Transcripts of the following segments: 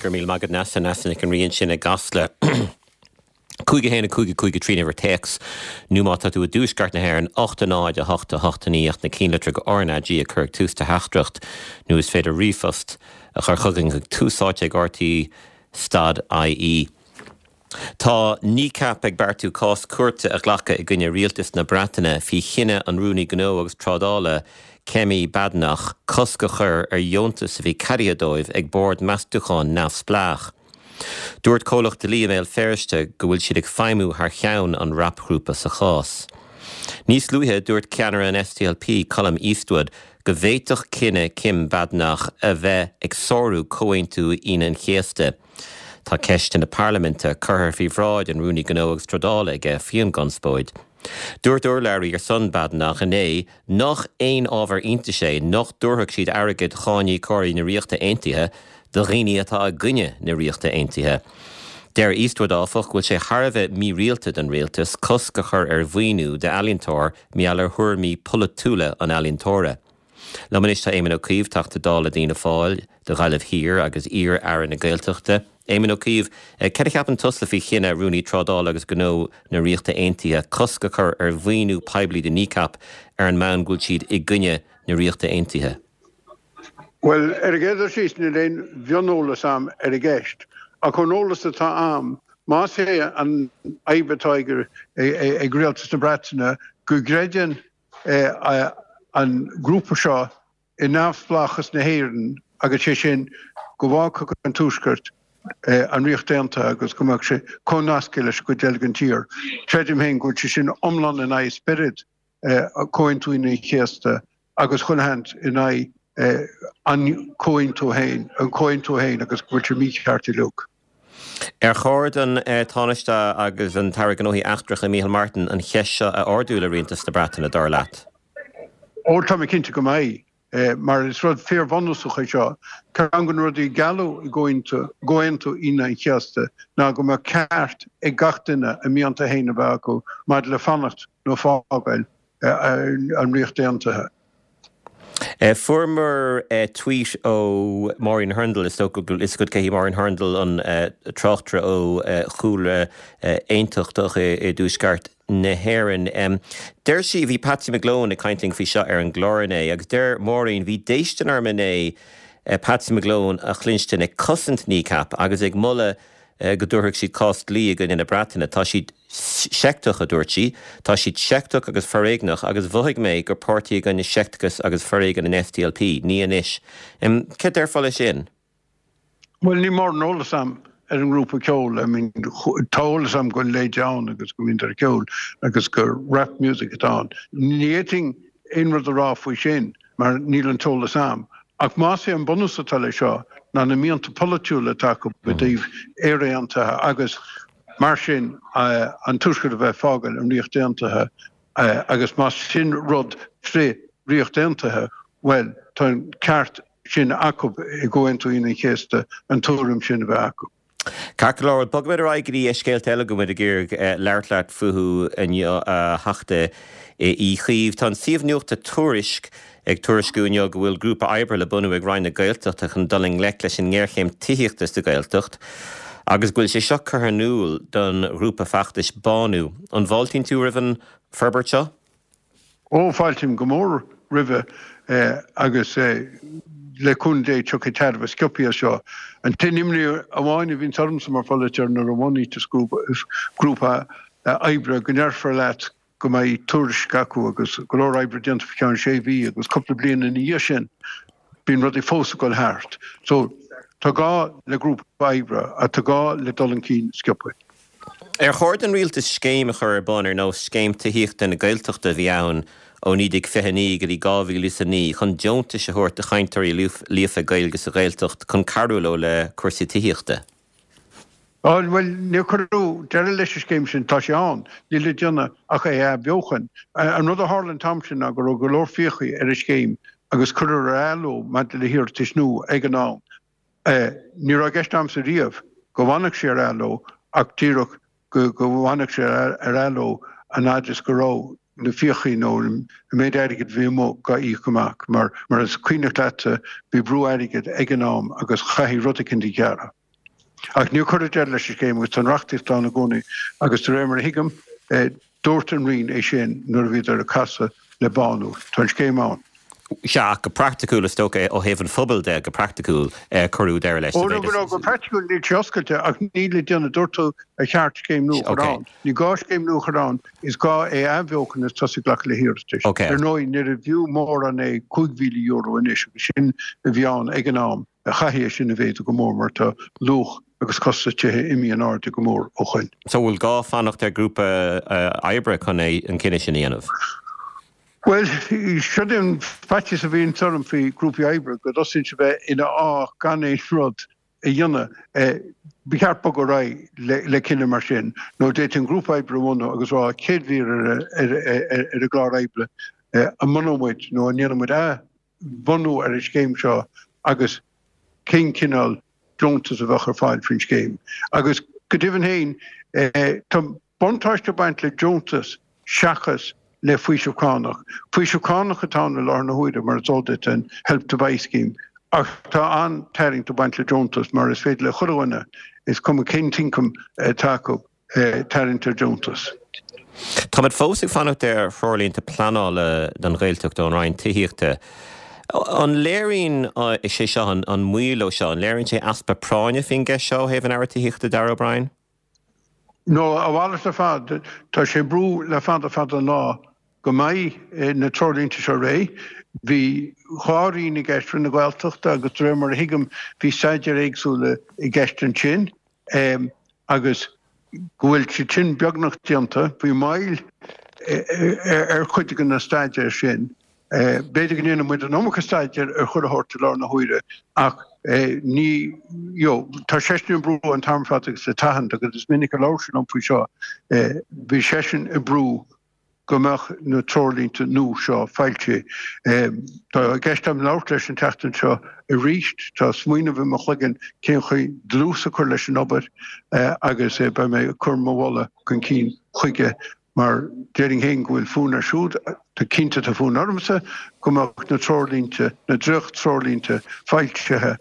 Go raibh míle maith agat Neasa, Neasa Nic an Rí ansin i gCasla. 5 1 5 5 3 an uimhir téacs, nó má tá tú i dtuaisceart na hÉireann, 8 0 8 8 9 ach na cinnlitreacha RnaG a chur ag tús do theachtaireacht, nó is féidir ríomhphost a chur chugainn chuig tús áite ag rte stad ie. Tá Kneecap ag beartú cás cúirte a ghlacadh i gcoinne rialtas na Breataine faoi chinneadh an Rúnaí Gnó agus Trádála Kemi Badenoch cosc a chur ar dheontas a bhí ceadaithe dóibh ag bord meastúcháin neamhspleách. Dúirt comhlacht dlí i mBéal Feirste go bhfuil siad ag feidhmiú thar cheann an rapghrúpa sa chás. Níos luaithe, dúirt ceannaire an SDLP, Colum Eastwood, go bhféadfadh cinneadh Kim Badenoch a bheith ag sárú Comhaontú Aoine an Chéasta. Tá ceisteanna parlaiminte curtha faoi bhráid an Rúnaí Gnó agus Trádála aige faoin gconspóid. Dúirt urlabhraí ar son Badenoch inné nach aon ábhar iontais é nach dtabharfadh siad airgead cháiníocóirí na Ríochta Aontaithe do dhaoine atá i gcoinne na Ríochta Aontaithe. Deir Eastwood, áfach, go bhfuil sé thar a bheith mírialta don rialtas cosc a chur ar mhaoiniú d'ealaíontóir mar gheall ar thuairimí polaitiúla an ealaíontóra. Liom anois tá Éamon Ó Cuív, Teachta Dála d'Fhianna Fáil do Ghaillimh Thiar agus iar-Aire na Gaeltachta. Éamon Ó Cuív, cad a cheapann tusa faoi chinneadh Rúnaí Trádála agus Gnó na Ríochta Aontaithe cosc a chur ar mhaoiniú poiblí do Kneecap ar an mbonn go bhfuil siad i gcoinne na Ríochta Aontaithe? Bhuel, ar an gcéad dul síos, níl aon mhioneolas a'm ar an gceist, ach ón eolas atá a'm, más é an fhadhb atá ag Rialtas na Breataine go gcreideann an grúpa seo i neamhspleáchas na hÉireann agus sé sin go bhfágfadh an Tuaisceart an Ríocht Aontaithe agus go mbeadh sé comhnasctha leis an gcuid eile den tír. Creidim féin go bhfuil sé sin iomlán in aghaidh spiorad Chomhaontú Aoine an Chéasta agus chuile sheans in aghaidh an comhaontú féin, an comhaontú féin agus go bhfuil sé mícheart uilig. Ar chóir don Tánaiste agus an tAire Gnóthaí Eachtracha Micheál Martin an cheist seo a ardú le Rialtas na Breataine, dar leat? Ó, tá mé cinnte go mbeidh, mar is rud fíorbhunúsach é seo. Ceann de na rudaí a gealladh i gComhaontú Aoine an Chéasta ná go mbeadh ceart ag gach duine a mianta féin a bheith acu maidir le fanacht nó fágáil an Ríocht Aontaithe. Fuaireamar tweet ó Maureen Hurndall, is dócha go bhfuil fhios agat cé hí Maureen Hurndall, an tráchtaire ó chúlra aontachtach i dTuaisceart na hÉireann. Deir sí, bhí Patsy McGlone ag caint linn faoi seo ar an gclár inné, agus deir Maureen, bhí déistin orm inné Patsy McGlone a chluinstin ag cosaint Kneecap agus ag moladh go dtabharfadh siad cás dlí i gcoinne na Breataine. Tá siad seicteach, a dúirt sí. Tá siad seicteach agus foréigneach agus mhothaigh mé gur páirtí i gcoinne seicteachas agus foréigean an SDLP. Ní anois. Céard déarfá leis sin? Bhuel, níl mórán eolas a'm ar an ngrúpa ceoil. I mean, tá eolas a'm go bhfuil leid ann agus go mbíonn ar ceol agus gur rap music atá ann. Ní fhéadfainn aon rud a rá faoi sin mar níl an t-eolas a'm. Ach más é an bunús atá leis seo ná na mianta polaitiúla atá acu i dtaobh Éire Aontaithe agus mar sin an Tuaisceart a bheith ag fágáil an Ríocht Aontaithe agus más sin rud frith Ríocht Aontaithe, bhuel tá an ceart sin acu i gComhaontú Aoine an Chéasta an tuairim sin a bheith acu. Ceart go leor, bogfaimid ar aghaidh go dtí scéalta eile go bhfuil muid ag iarraidh labhairt leat fúthu inniu, a Theachta Uí Chuív. Tá an suíomh nuachta Tuairisc ag tuairisciú inniu go bhfuil grúpa oibre le bunú ag Roinn na Gaeltachta chun dul i ngleic leis an ngéarchéim tithíochta sa Ghaeltacht agus go bhfuil sé seo curtha in iúl don ghrúpa feachtais Bánú. An bhfáiltíonn tú roimh an forbairt seo? Ó, fáiltím go mór roimhe agus le cúnamh Dé tiocfaidh tairbhe sciobtha as seo. An t-aon imní amháin a bhíonns ormsa mar pholaiteoir nuair a bhunaíteas grúpa oibre go ndéarfar leat go mbeidh tuairisc acu agus go leor oibre déanta faoi cheann sé mhí agus cúpla bliain ina dhiaidh sin bíonn rudaí fós ag dul thart. So tá gá le grúpa oibre ach tá gá le dul chun cinn sciobtha. Ar chóir don rialtas scéim a chur ar bun ar nós Scéim Tithíochta na Gaeltachta a bhí ann ó 1929 go dtí 2009 chun deontais a thabhairt do chainteoirí líofa Gaeilge sa Ghaeltacht chun cabhrú leo le cúrsaí tithíochta? Bhuel, níor cuireadh deireadh leis an scéim sin, tá sé ann, níl le déanamh ach é a athbheochan. An rud a tharla an t-am sin ná go raibh go leor fiacha ar an scéim agus cuireadh ar athló maidir le hiarratais nua ag an am. Ní raibh i gceist a'msa riamh go bhfanfadh sé ar athló ach díreach go bhfanfadh sé ar athló an fhad is go raibh na fiachaí nó an méid airgid a bhí amuigh dhá íoc amach mar mar is cuimhneach leatsa bhí brú airgid ag an am agus chaithfí rud eicínt a ghearradh. Ach níor cuireadh deireadh leis an scéim agus tá an reachtaíocht ann i gcónaí agus de réir mar a thuigim, dúirt an Roinn é sin nuair a bhíodar ag casadh le Bánú. Tá an scéim ann. Sea, ach go praiticiúil, is dócha, ó thaobh an phobail de, go praiticiúil, cuireadh deireadh leis. Ó, no, go praiticiúil níl sé oscailte ach níl le déanamh, dúirt tú ar cheart scéim nua a chur ann. Ní gá scéim nua a chur ann, is gá é a athbheochan agus tosú ag glacadh le hiarratais. Ar ndóigh, níorbh fhiú mórán é €5,000 anois agus sin a bhí ann ag an am. Chaithfí é sin a mhéadú go mór mar tá luach agus costas tithe imithe in airde go mór ó shoin. So bhfuil gá fanacht ar grúpa oibre chun é an cinneadh sin a dhéanamh? Bhuel, seo é an faitíos a bhíonns orm faoi grúpaí oibre, go dtosaíonn siad bheith ina fháth gan aon rud a dhéanamh. Ba cheart bogadh ar aghaidh le cinneadh mar sin, nó d'fhéadfaí an grúpa oibre a bhunú agus rá chéad mhír ar an gclár oibre, an mbunóidh muid nó an ndéanfaidh muid athbhunú ar an scéim seo agus cén cineál deontas a bheadh ar fáil faoin scéim. Agus go deimhin féin, tá. Buntáiste ag baint le deontas seachas le faoiseamh cánach. Faoiseamh cánach atá ann i láthair na huaire, mar is eol duit, an Help to Buy scheme, ach tá an-tarraingt ag baint le deontas mar is féidir le chuile dhuine, is cuma cén t-ioncam atá acu, tarraingt ar deontas. Táimid fós ag fanacht ar threoirlínte pleanála don Ghaeltacht ón Roinn Tithíochta. An léiríonn sé seo, an moill seo, an léiríonn sé easpa práinne faoin gceist seo ó thaobh an Aire Tithíochta Darragh O'Brien? No, a mhalairt ar fad. Tá sé ag brú le fada fada an lá go mbeidh na treoirlínte seo réidh. Bhí dhá roinn i gceist, Roinn na Gaeltachta agus de réir mar a thuigim bhí staidéir éagsúla i gceist ansin agus go bhfuil siad sin beagnach déanta. Bhí moill ar chuid de na staidéir sin. B'fhéidir go ndéanann muid an iomarca staidéir ar chuile shórt i láthair na huaire ach ní, you know, tá seisean ag brú an t-am ar fad agus le tathant agus is minic a labhair sé liom faoi seo, bhí seisean ag brú go mbeadh na treoirlínte nua seo foilsithe. Tá i gceist agam labhairt leis an tseachtain seo arís, tá smaoineamh i mo chloigeann cén chaoi dlús a chur leis an obair agus beidh mé ag cur mo mholadh chun cinn chuige Mar déarfainn féin go bhfuil fonn air siúd, tá cinnte tá fonn ormsa go mbeadh na treoirlínte, na dréacht-treoirlínte foilsithe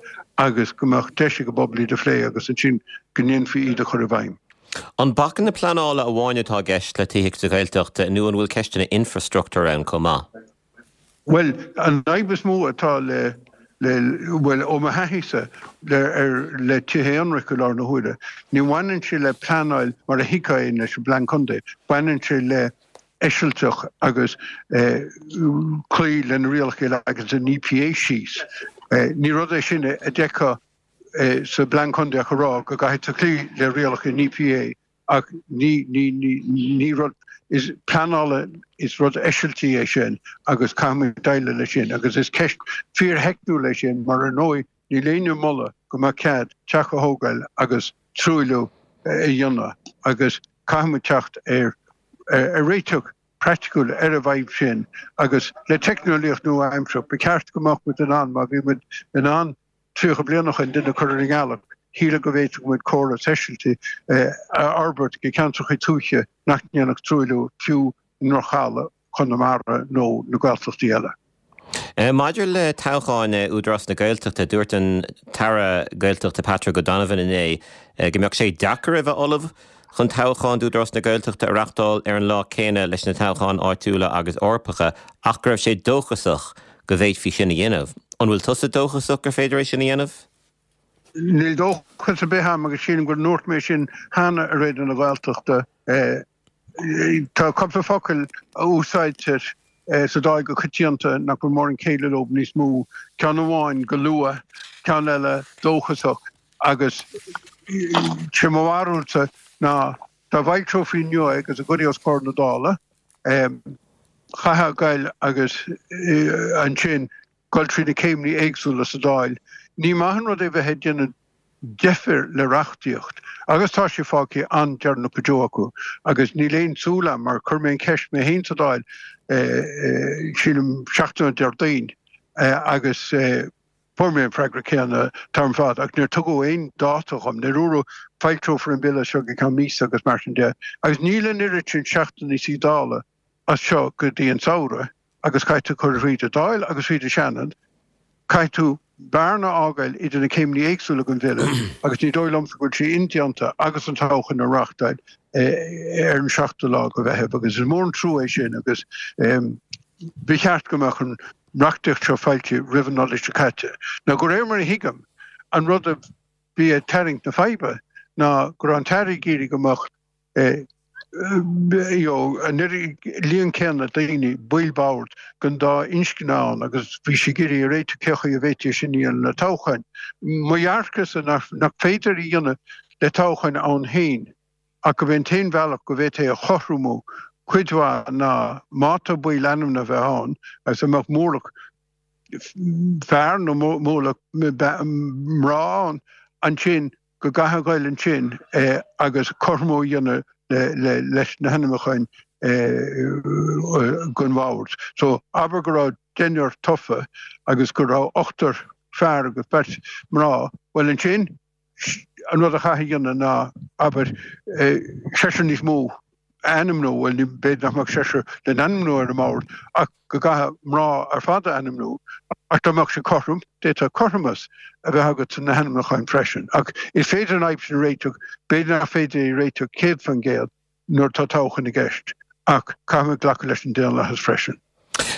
agus go mbeadh deis ag an bpobal iad a phlé agus ansin go ndéanfaí iad a chur i bhfeidhm. An bacanna pleanála amháin atá i gceist le tithíocht sa Ghaeltacht nó an bhfuil ceisteanna infreastruchtúir ann chomh maith? Bhuel, an fhadhb is mó atá le, le, bhuel, ó mo thaithíse, le, ar, le tithe aonraic i láthair na huaire, ní bhaineann sé le pleanáil mar a thuigfeá é leis an bPlean Contae, baineann sé le eisilteach agus eh, cloí le na rialacha a leagann an EPA síos. Eh, ní rud é sin a d'fheicfeá eh, sa bPlean Contae ach a rá go gcaithfidh tú cloí le rialacha an EPA Ach ní, ní, ní, ní rud is pleanála, is rud eisiltí é sin agus caithfimid déileáil leis sin agus is ceist fíortheicniúil é sin mar ar ndóigh níl éinne ag moladh go mbeadh cead teach a thógáil agus truailliú a dhéanamh agus caithfimid teacht ar ar réiteach praiticiúil ar an bhfadhb sin agus le teicneolaíocht nua-aimseartha ba cheart go mbeadh muid in ann má bhí muid in ann 30 bliain ó shin duine a chur ar an ngealach, shílfeá go bhféadfadh muid córas eisiltigh a fhorbairt go ceantracha tuaithe nach ndéanfadh truailliú fiú i ndroch-thalamh Chonamara nó na Gaeltachtaí eile. Maidir le toghcháin Údarás na Gaeltachta, dúirt an tAire Gaeltachta Patrick O'Donovan inné go mbeadh sé deacair a bheith ullamh chun toghcháin d'Údarás na Gaeltachta a reáchtáil ar an lá céanna leis na toghcháin áitiúla agus Eorpacha ach go raibh sé dóchasach go bhféadfaí sin a dhéanamh. An bhfuil tusa dóchasach gur féidir é sin a dhéanamh? Níl dóchas ar bith a'm agus sílim go ndúirt mé sin cheana ar Raidió na Gaeltachta. Tá cúpla focal a úsáidtear sa Dáil go coitianta nach bhfuil mórán céille leo níos mó, ceann amháin go luath, ceann eile dóchasach agus sé mo bharúilsa ná Dá bhfoilseofaí inniu é agus a gcuirfí os comhair na Dála, chaithfeá goil agus ansin goil trí na céimeanna éagsúla sa Dáil. Ní maith an rud é bheith ag déanamh deifir le reachtaíocht agus tá sé fágtha an-deireanach go deo acu agus níl aon tsúil agam, mar chuir mé an cheist mé féin sa Dáil, sílim seachtain ó Déardaoin agus, Fuair mé an freagra céanna an t-am ar fad ach níor tugadh aon dáta dhom. Níor dúradh foilseofar an bille seo go ceann míosa agus mar sin de. Agus níl an oiread sin seachtainí suí Dála as seo go dtí an samhradh agus caithfidh tú cur thríd an Dáil agus thríd an Seanad. Caithfidh tú. bearna a fhágáil idir na céimeanna éagsúla den bhille agus ní dóigh liomsa go bhfuil sé indéanta agus an toghchán a reáchtáil ar an seachtú lá de Mheitheamh agus is mór an trua é sin agus ba cheart go mbeadh an reachtaíocht seo foilsithe roimh an Nollaig seo caite. Now de réir mar a thuigim, an rud a bhí ag tarraingt na faidhbe ná go raibh an tAire ag iarraidh go mbeadh an líon céanna daoine, baill boird, den dá inscne ann agus bhí sé ag iarraidh a réiteach cé chaoi a bhféadfaí é sin a dhéanamh le toghcháin. Mo dhearcadhsa nach féidir a dhéanamh le toghcháin ann féin ach gurb é an t-aon bhealach go bhféadfaí é a chothromú cuid mhaith ná má tá baill ainmnithe a bheith ann agus a mbeadh mórlach fear nó mórlach mná ann ansin go gcaithfí a ghoil ansin agus cothromú a dhéanamh leis na hainmniúcháin don bhord. So abair go raibh deichniúr tofa agus go raibh ochtar fear agus beirt mná, bhuel ansin an rud a chaithfí a dhéanamh ná abair seisear níos mó a ainmniú, bhuel b'fhéidir nach mbeadh seisear le n-ainmniú ar an mbord ach go gcaithfí mná ar fad a ainmniú, ach dá mbeadh sé cothrom, d'fhéadfadh cothromas a bheith agat sna hainmniúcháin freisin. Ach is féidir an fhadhb sin a réiteach, b'fhéidir nach féidir é a réiteach 100% nuair atá toghchán i gceist, ach caithfimid glacadh leis an daonlathas freisin.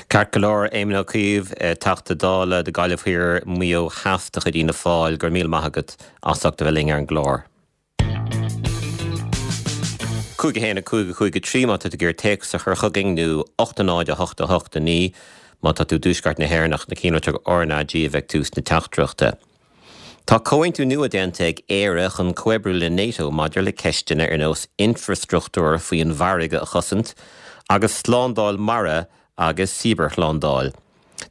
Ceart go leor, Éamon Ó Cuív, Teachta Dála do Gaillimh Thiar, Maigh Eo Theas de chuid Fhianna Fáil, go raibh míle maith agat as ucht a bheith linn ar an gclár. 5 1 5 5 3 má tá tú ag iarraidh téacs a chur chugainn nó 8 0 8 8 9 má tá tú i dtuaisceart na hÉireann ach na cinnlitreacha RnaG a bheidh ag tús na teachtaireachta. Tá comhaontú nua déanta ag Éire chun comhoibriú le NATO maidir le ceisteanna ar nós infreastruchtúr faoin bhfarraige a chosaint agus slándáil mara agus cibearshlándáil.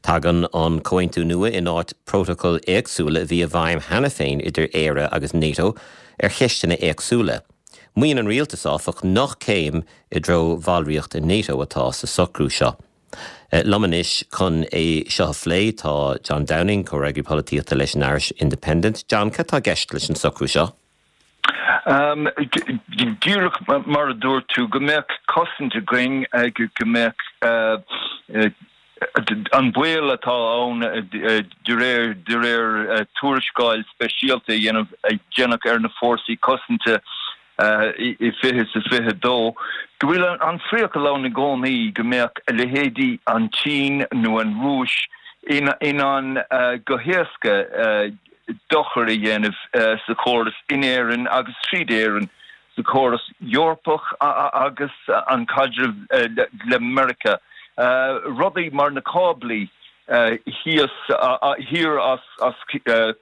Tagann an comhaontú nua in áit prótacail éagsúla a bhí i bhfeidhm cheana féin idir Éire agus NATO ar cheisteanna éagsúla. Maíonn an rialtas, áfach, nach céim i dtreo bhallraíocht i NATO atá sa socrú seo. Liom anois chun é seo a phlé tá John Downing, comhfhreagraí polaitíochta leis an Irish Independent. John, cad tá i gceist leis an socrú seo? Díreach mar a dúirt tú, go mbeadh cosaint againn, go mbeadh an baol atá ann de réir de réir tuarascáil speisialta a dhéanamh a déanadh ar na fórsaí cosanta i 2022, go bhfuil an priacal ann i gcónaí go mbeadh a leithéidí an tSín nó an Rúis in ann go héasca dochar a dhéanamh sa chóras in Éirinn agus tríd Éirinn sa chóras Eorpach agus an caidreamh le Meiriceá. Rudaí mar na cáblaí thíos thiar as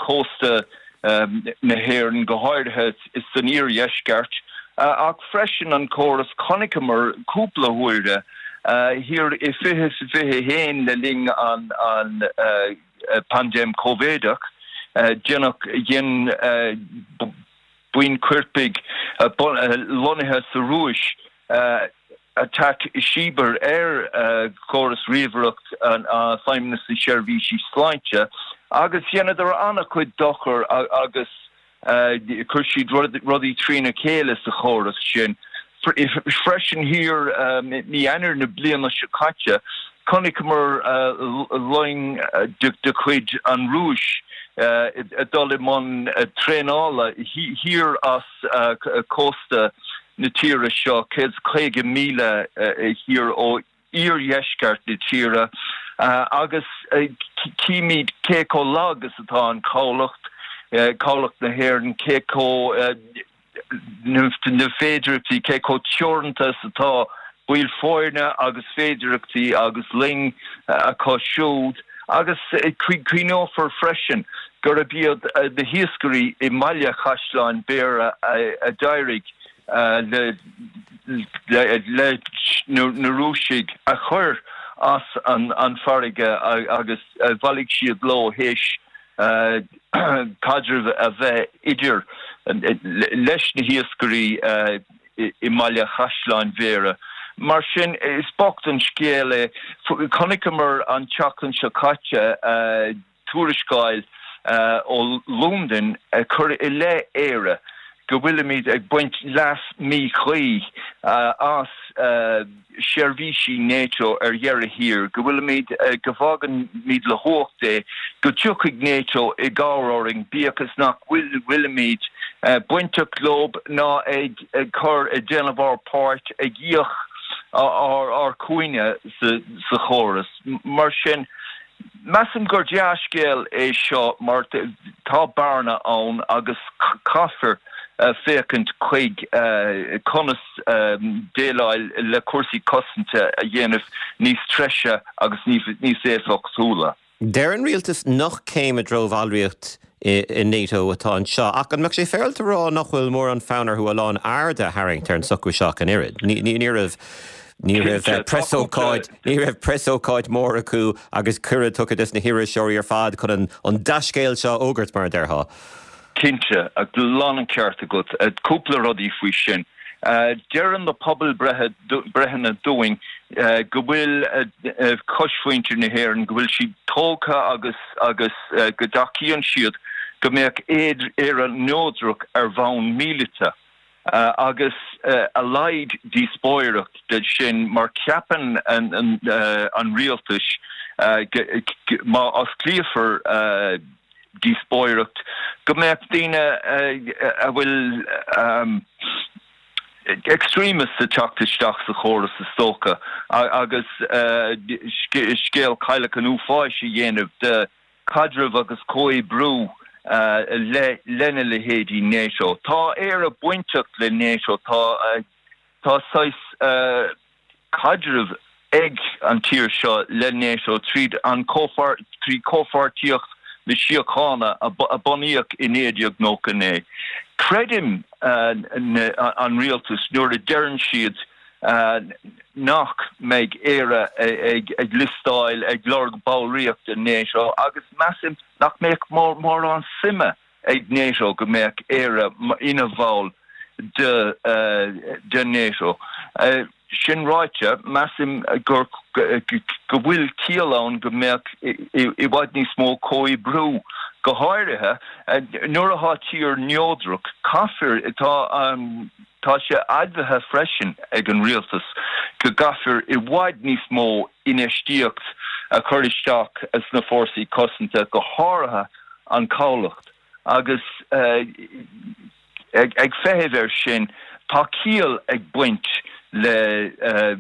cósta na hÉireann, go háirithe san iardheisceart, ach freisin an córas, chonaiceamar cúpla huaire thiar i 2021 le linn an paindéim Covideach, déanadh, dhein buíon coirpigh lonnaithe sa Rúis attack cibear ar chóras ríomhaireacht Feidhmeannas na Seirbhísí Sláinte agus dheineadar an-chuid dochar agus Chuir siad rudaí trína chéile sa chóras sin. Freisin thiar mí Eanáir na bliana seo caite, chonaiceamar loing de chuid an Rúis ag dul i mbun traenála thiar as cósta na tíre seo, 150 míle thiar ó iardheisceart na tíre agus címid cé chomh lag is atá an cabhlach, cabhlach na hÉireann, cé chomh na féidireachtaí, cé chomh teoranta is atá baill foirne agus féidireachtaí agus loing acu siúd agus cuimhneofar freisin gurb iad na hiascairí i mBaile Chaisleáin Bhéarra a d'éirigh leis na Rúisigh a chur as an bhfarraige agus bhailigh siad leo théis caidreamh a bheith idir leis na hiascairí i mBaile Chaisleáin Bhéarra. Mar sin, is bocht an scéal é. Chonaiceamar an tseachtain seo caite tuarascáil ó Londain ag cur i leith Éire. go bhfuilimid ag baint leas míchuí as seirbhísí NATO ar dheireadh thiar, go bhfuilimid, go bhfágaimid le huacht é, go dtiocfaidh NATO i gcabhair orainn, bíodh is nach bhfuilimid bainteach leo ná ag cur, ag déanamh ár bpáirt, ag íoc ár cúinne sa chóras. Mar sin, Measaim gur dea-scéal é seo mar tá bearna ann agus caithfear féachaint chuig conas déileáil le cúrsaí cosanta a dhéanamh níos treise agus níos éifeachtúla. Deir an rialtas nach céim i dtreo bhallraíocht i NATO atá anseo, ach an mbeadh sé féaráilte a rá nach bhfuil mórán fonn orthu a lán airde a tharraingt ar an socrú seo ach an oiread? Ní raibh ní raibh preasócáid ní raibh preasócáid mór acu agus cuireadh tugtha dos na hiriseoirí ar fad chun an an dea-scéal seo a fhógairt, mar a déarfá. Cinnte, lán an ceart agat. Cúpla rudaí faoi sin. Deireann na pobalbhreitheanna dúinn go bhfuil cosmhuintir na hÉireann, go bhfuil siad tógtha agus agus go dtacaíonn siad go mbeadh Éire neodrach ar bhonn míleata. Agus a laghad díospóireacht de sin mar ceapann an rialtas má osclaíofar díospóireacht go mbeadh daoine a bhfuil extremists ag teacht isteach sa chóras is dócha agus scéal cailleach an uafáis a dhéanamh de chaidreamh agus comhoibriú lena leithéidí NATO. Tá Éire bainteach le NATO, tá tá saghas caidreamh ag an tír seo le NATO tríd an trí Comhpháirtíocht na Síochána a bunaíodh i 1999. Creidim an rialtas nuair a deireann siad nach mbeidh Éire ag liostáil ag lorg ballraíocht i NATO agus measaim nach mbeadh mórán suime ag NATO go mbeadh Éire ina bhall de NATO. Sin ráite, measaim gur go bhfuil ciall ann go mbeadh i bhfad níos mó comhoibriú, go háirithe nuair atá tír neodrach. Caithfear, tá tá sé admhaithe freisin ag an rialtas go gcaithfear i bhfad níos mó infheistíocht a chur isteach sna fórsaí cosanta, go háirithe an cabhlach agus ag feitheamh air sin tá ciall ag baint le a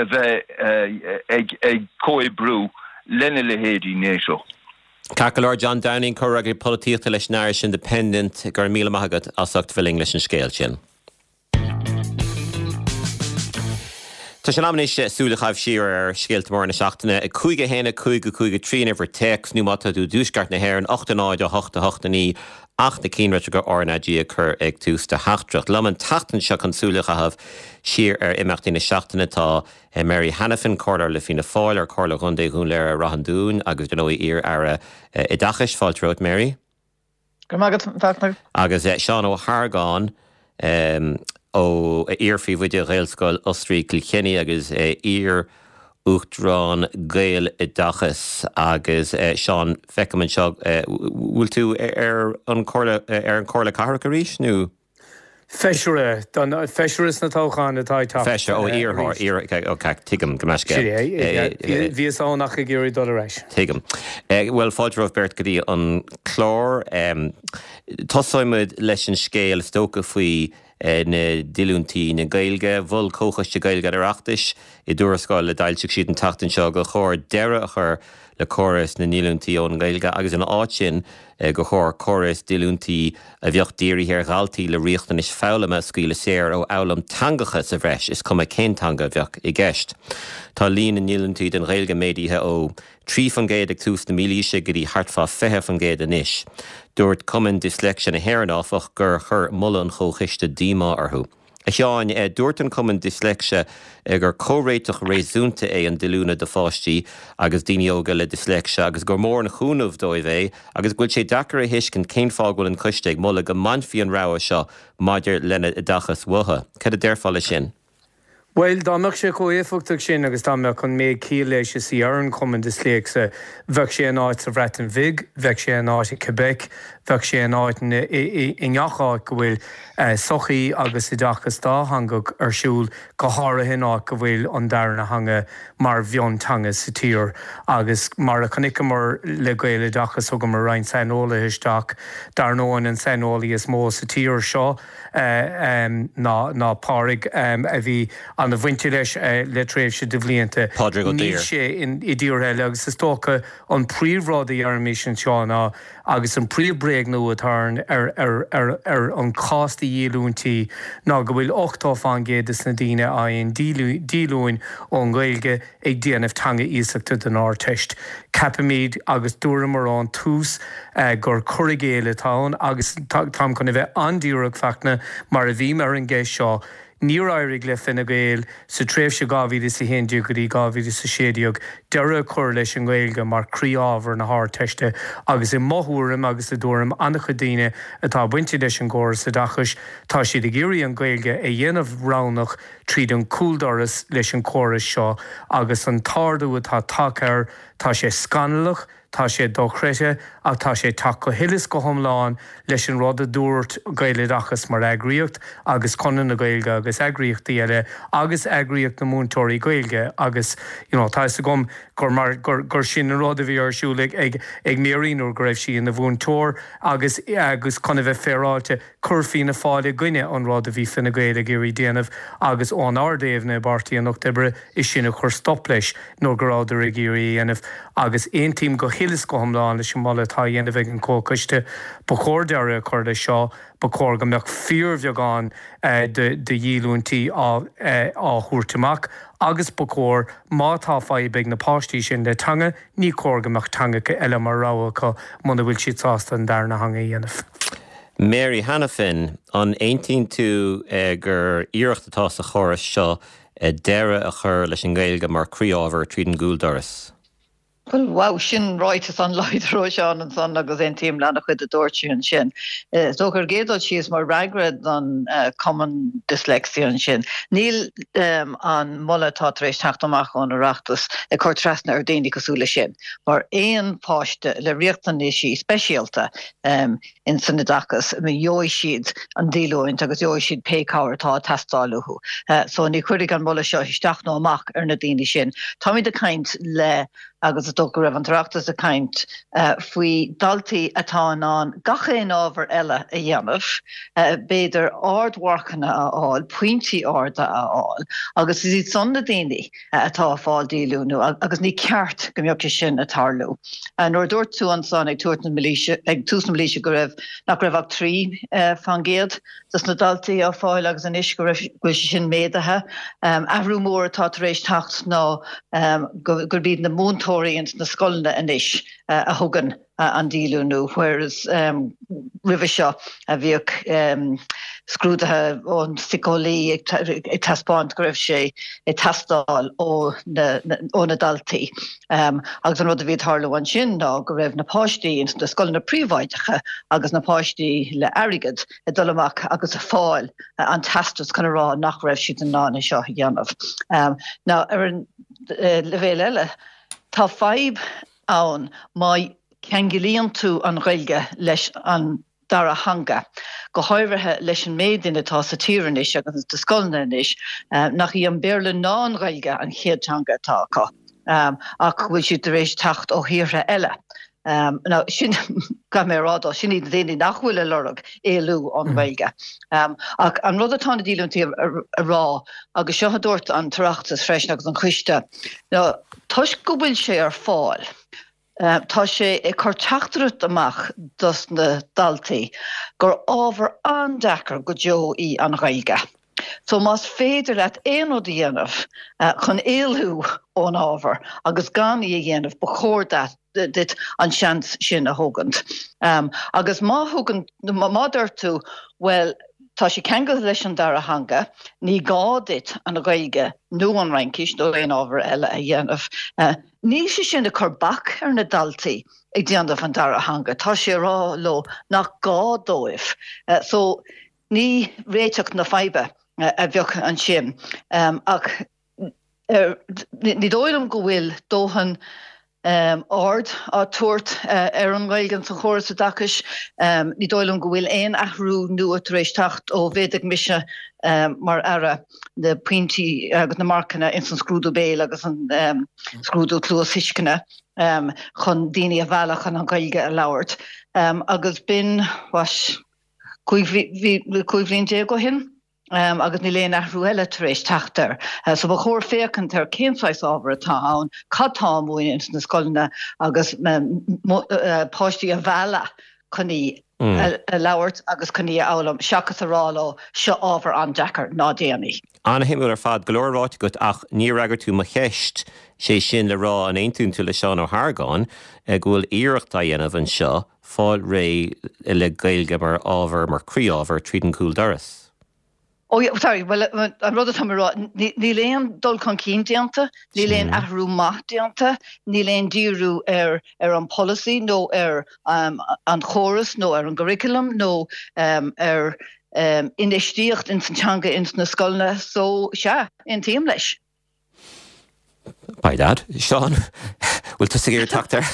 bheith ag comhoibriú lena leithéidí NATO. Ceart go leor, John Downing, Comhfhreagraí Polaitíochta leis an Irish Independent, go raibh míle maith agat as ucht bheith linn leis an scéal sin. Tá sé in am anois súil a chaitheamh siar ar scéalta móra na seachtaine. 5 1 5 5 3 an uimhir téacs nó má tá tú i dtuaisceart na hÉireann 8 0 8 8 9 ach na cinnlitreacha RnaG a chur ag tús do theachtaireacht. Liom an tseachtain seo chun súil a chaitheamh siar ar imeachtaí na seachtaine tá Mary Hanafin, Comhairleoir le Fianna Fáil ar Chomhairle Chontae Dhún Laoghaire Rath an Dúin agus dar ndóigh iar-aire oideachais. Fáilte romhat Mary. Go raibh maith agat, a Fhachtna. Agus Seán Ó hArgáin, ó iar-phríomhoide Ghaelscoil Osraí Chill Chainnigh agus iar-Uachtarán Gaeloideachas. Agus Seán, feicim anseo, bhfuil tú ar an Chomhairle, ar an Chomhairle Cathrach arís nó? Feisire, don feisire sna toghcháin atá ag teacht Feisire, ó iarrthóir, iar, ok, tuigim, gabh mo leithscéal. Bhíos ann ach ag iarraidh dul ar ais. Tuigim. Bhuel, fáilte romhaibh beirt go dtí an clár. Tosóidh muid leis an scéal is dócha faoi na díolúintí na Gaeilge. Mhol Comhchoiste Gaeilge an Oireachtais i dtuarascáil a d'fhoilsigh siad an tseachtain seo gur chóir deireadh a chur le córas na ndíolúintí ón nGaeilge agus ina áit sin gur chóir córas díolúintí a bheadh dírithe ar dhaltaí le riachtanais foghlama a scaoileadh saor ó fhoghlaim teangacha sa bhreis, is cuma cén teanga a bheadh i gceist. Tá líon na ndíolúintí don Ghaeilge méadaithe ó 3% ag tús na mílaoise go dtí thart fá 20% anois. Dúirt Cumann Disléicse na hÉireann, áfach, gur chuir moladh an Chomhchoiste díomá orthu. A Sheáin, dúirt an Cumann Disléicse gur comhréiteach réasúnta é an díolúine do pháistí agus daoine óga le disléicse agus gur mór an chúnamh dóibh é agus go bhfuil sé deacair a thuiscint cén fáth go bhfuil an coiste ag moladh go mbainfí an rogha seo maidir lena n-oideachas uathu. Cad a déarfá leis sin? Bhuel, dá mbeadh sé chomh éifeachtach sin agus dá mbeadh an méid ciall leis is a deir an Cumann Disléicse, bheadh sé in áit sa Bhreatain Bhig, bheadh sé in áit i Quebec, bheadh sé in áit i ngach áit go bhfuil sochaí agus oideachas dátheangach ar siúl, go háirithe in áit go bhfuil an darna theanga mar mhionteanga sa tír. Agus mar a chonaiceamar le Gaeloideachas, thugamar roinnt saineolaithe isteach, dar ndóigh an saineolaí is mó sa tír seo, ná Pádraig a bhí ana-bhainte leis le tréimhse de bhlianta. Pádraig Ó Níl Duibhir. sé i dtíortha eile agus is dócha an príomhrud a deirimís anseo ná, agus an príomh-bhréagnú atá ar an chás de dhíolúintí ná go bhfuil 80% des na daoine a fhaigheann díolúine ón nGaeilge ag déanamh teanga iasachta don Ardteist. Ceapaimid, agus dúramar ón tús, gur cur i gcéill atá ann agus táim chun a bheith an-díreach, Fachtna, mar a bhím ar an gceist seo, níor éirigh le Fine Gael sa tréimhse 2011 go dtí 2016 deireadh a chur leis an nGaeilge mar chroí-ábhar na hArdteiste agus i mo thuairim agus i dtuairim an-chuid daoine atá bainte leis an gcóras oideachais, tá siad ag iarraidh an Ghaeilge a dhéanamh roghnach tríd an chúldoras leis an chóras seo agus an t-ardú atá tagtha air, tá sé scannalach, tá sé dochreidte ach tá sé ag teacht go huile is go hiomlán leis an rud a dúirt Gaeloideachas mar eagraíocht agus Conradh na Gaeilge agus eagraíochtaí eile agus eagraíocht na múinteoirí Gaeilge agus you know tá fhios agam gur mar gur gur sin an rud a bhí ar siúl ag ag ag Mary nuair go raibh sí ina mhúinteoir agus agus chun a bheith féaráilte Chuir Fianna Fáil i gcoinne an rud a bhí Fine Gael ag iarraidh déanamh agus ón ár dtaobhna i bPáirtí an Lucht Oibre is sinn a chuir stop leis nuair go rabhadar ag iarraidh a dhéanamh agus aontaím go huile is go hiomlán leis an moladh atá á dhéanamh ag an Chomhchoiste. Ba chóir deireadh a chur leis seo. Ba chóir go mbeadh fíorbheagán de dhíolúintí á thabhairt amach agus ba chóir má tá fadhb ag na páistí sin le teanga, ní chóir go mbeadh teangacha eile mar rogha acu muna bhfuil siad sásta an darna theanga a dhéanamh. Mary Hanafin, An aontaíonn tú gur iarracht atá sa chóras seo deireadh a chur leis an nGaeilge mar chroí-ábhar tríd an gcúldoras? Bhuel, wow, sin ráiteas an-láidir ó Sheán ansan agus aontaím le an-chuid a dúirt sé ansin. Is dócha ar an gcéad dul síos mar fhreagra don Cumann Dyslexia ansin, níl an moladh atá tar éis teacht amach ón Oireachtas ag cur trasna ar daoine cosúil leis sin, mar aon pháiste le riachtanaisí speisialta in san oideachas, gheobhaidh siad an díolúint agus gheobhaidh siad pé cabhair atá ag teastáil uathu. So ní chuirfidh an moladh seo isteach nó amach ar na daoine sin. Táimid ag caint le, agus is dócha go raibh an tOireachtas ag caint faoi daltaí atá in ann gach aon ábhar eile a dhéanamh, b'fhéidir ardmharcanna a fháil, pointí arda a fháil, agus is iad san na daoine atá ag fáil díolúnú agus ní ceart go mbeadh sé sin ag tarlú. Nuair a dúirt tú ansan ag tabhairt na mílaoise, ag tús na mílaoise go raibh, nach raibh ach 3% dos na daltaí á fáil agus anois go raibh, go bhfuil sé sin méadaithe. Athrú mór atá tar éis teacht ná gurb iad na múinteoirí ins na scoileanna anois a thugann an díolúnú, whereas roimhe seo bhíodh scrúduithe ón síceolaí ag taispeáint go raibh sé ag teastáil ó na daltaí. Agus an rud a bhí ag tarlú ansin ná go raibh na páistí ins na scoileanna príobháideacha agus na páistí le airgead ag dul amach agus ag fáil an teastas chun a rá nach raibh siad in ann é seo a dhéanamh. Now ar an leibhéal eile, tá fadhb ann má cheanglaíonn tú an Ghaeilge leis an dara theanga, go háirithe leis an méid daoine atá sa tír anois agus sna scoileanna anois nach í an Béarla ná an Ghaeilge an chéad teanga atá acu ach go bhfuil siad tar éis teacht ó thíortha eile. Now sin, caithfidh mé a rá dó, sin iad na daoine nach bhfuil ag lorg éalú ón Ghaeilge. Ach an rud atá na díolúintí a rá, agus seo a dúirt an tOireachtas freisin agus an Coiste, ná toisc go bhfuil sé ar fáil, tá sé ag cur teachtaireacht amach dos na daltaí gur ábhar an-deacair go deo í an Ghaeilge. So más féidir leat aon rud a dhéanamh chun éalú ón ábhar agus gan í a dhéanamh, ba chóir duit an seans sin a thógaint. Agus má thugann, má deir tú, bhuel, tá sé ceangailte leis an dara theanga, ní gá duit an Ghaeilge nó an Fhraincis nó aon ábhar eile a dhéanamh. Níl sé sin ag cur bac ar na daltaí ag déanamh an dara theanga, tá sé ag rá leo nach gá dóibh. So ní réiteach na faidhbe. a bheadh ansin. Ach ní dóigh liom go bhfuil dóthain aird á tabhairt ar an nGaeilge sa chóras oideachais. Ní dóigh liom go bhfuil aon athrú nua tar éis teacht ó mhéadaigh mise mar Aire na pointí agus na marcanna ins an scrúdú béil agus an scrúdú cluasthuisceana chun daoine a mhealladh chun an Ghaeilge a labhairt. Agus b'in, what, 15 bhliain ó shin agus níl aon athrú eile tar éis teacht air. So ba chóir féachaint ar cén saghas ábhar atá ann, cad tá á múineadh ins na scoileanna agus páistí a mhealladh chun í a labhairt agus chun í a fhoghlaim seachas a rá leo seo ábhar an-deacair, ná déan í. An-shuimiúil ar fad, go leor ráite agat ach níor fhreagair tú mo cheist, sé sin le rá an aontaíonn tú le Seán Ó hArgáin go bhfuil iarracht á dhéanamh anseo fáil réidh le Gaeilge mar ábhar, mar chroí-ábhar, tríd an gcúl doras. Oh yeah, sorry, bhuel, an rud atá mé a rá, níl aon dul chun cinn déanta, níl aon athrú maith déanta, níl aon díriú ar ar an polasaí nó ar an chóras nó ar an gcurriculum nó ar infheistíocht ins an teanga ins na scoileanna, so sea, aontaím leis. By dad. Seán, bhfuil tusa ag iarraidh teacht air?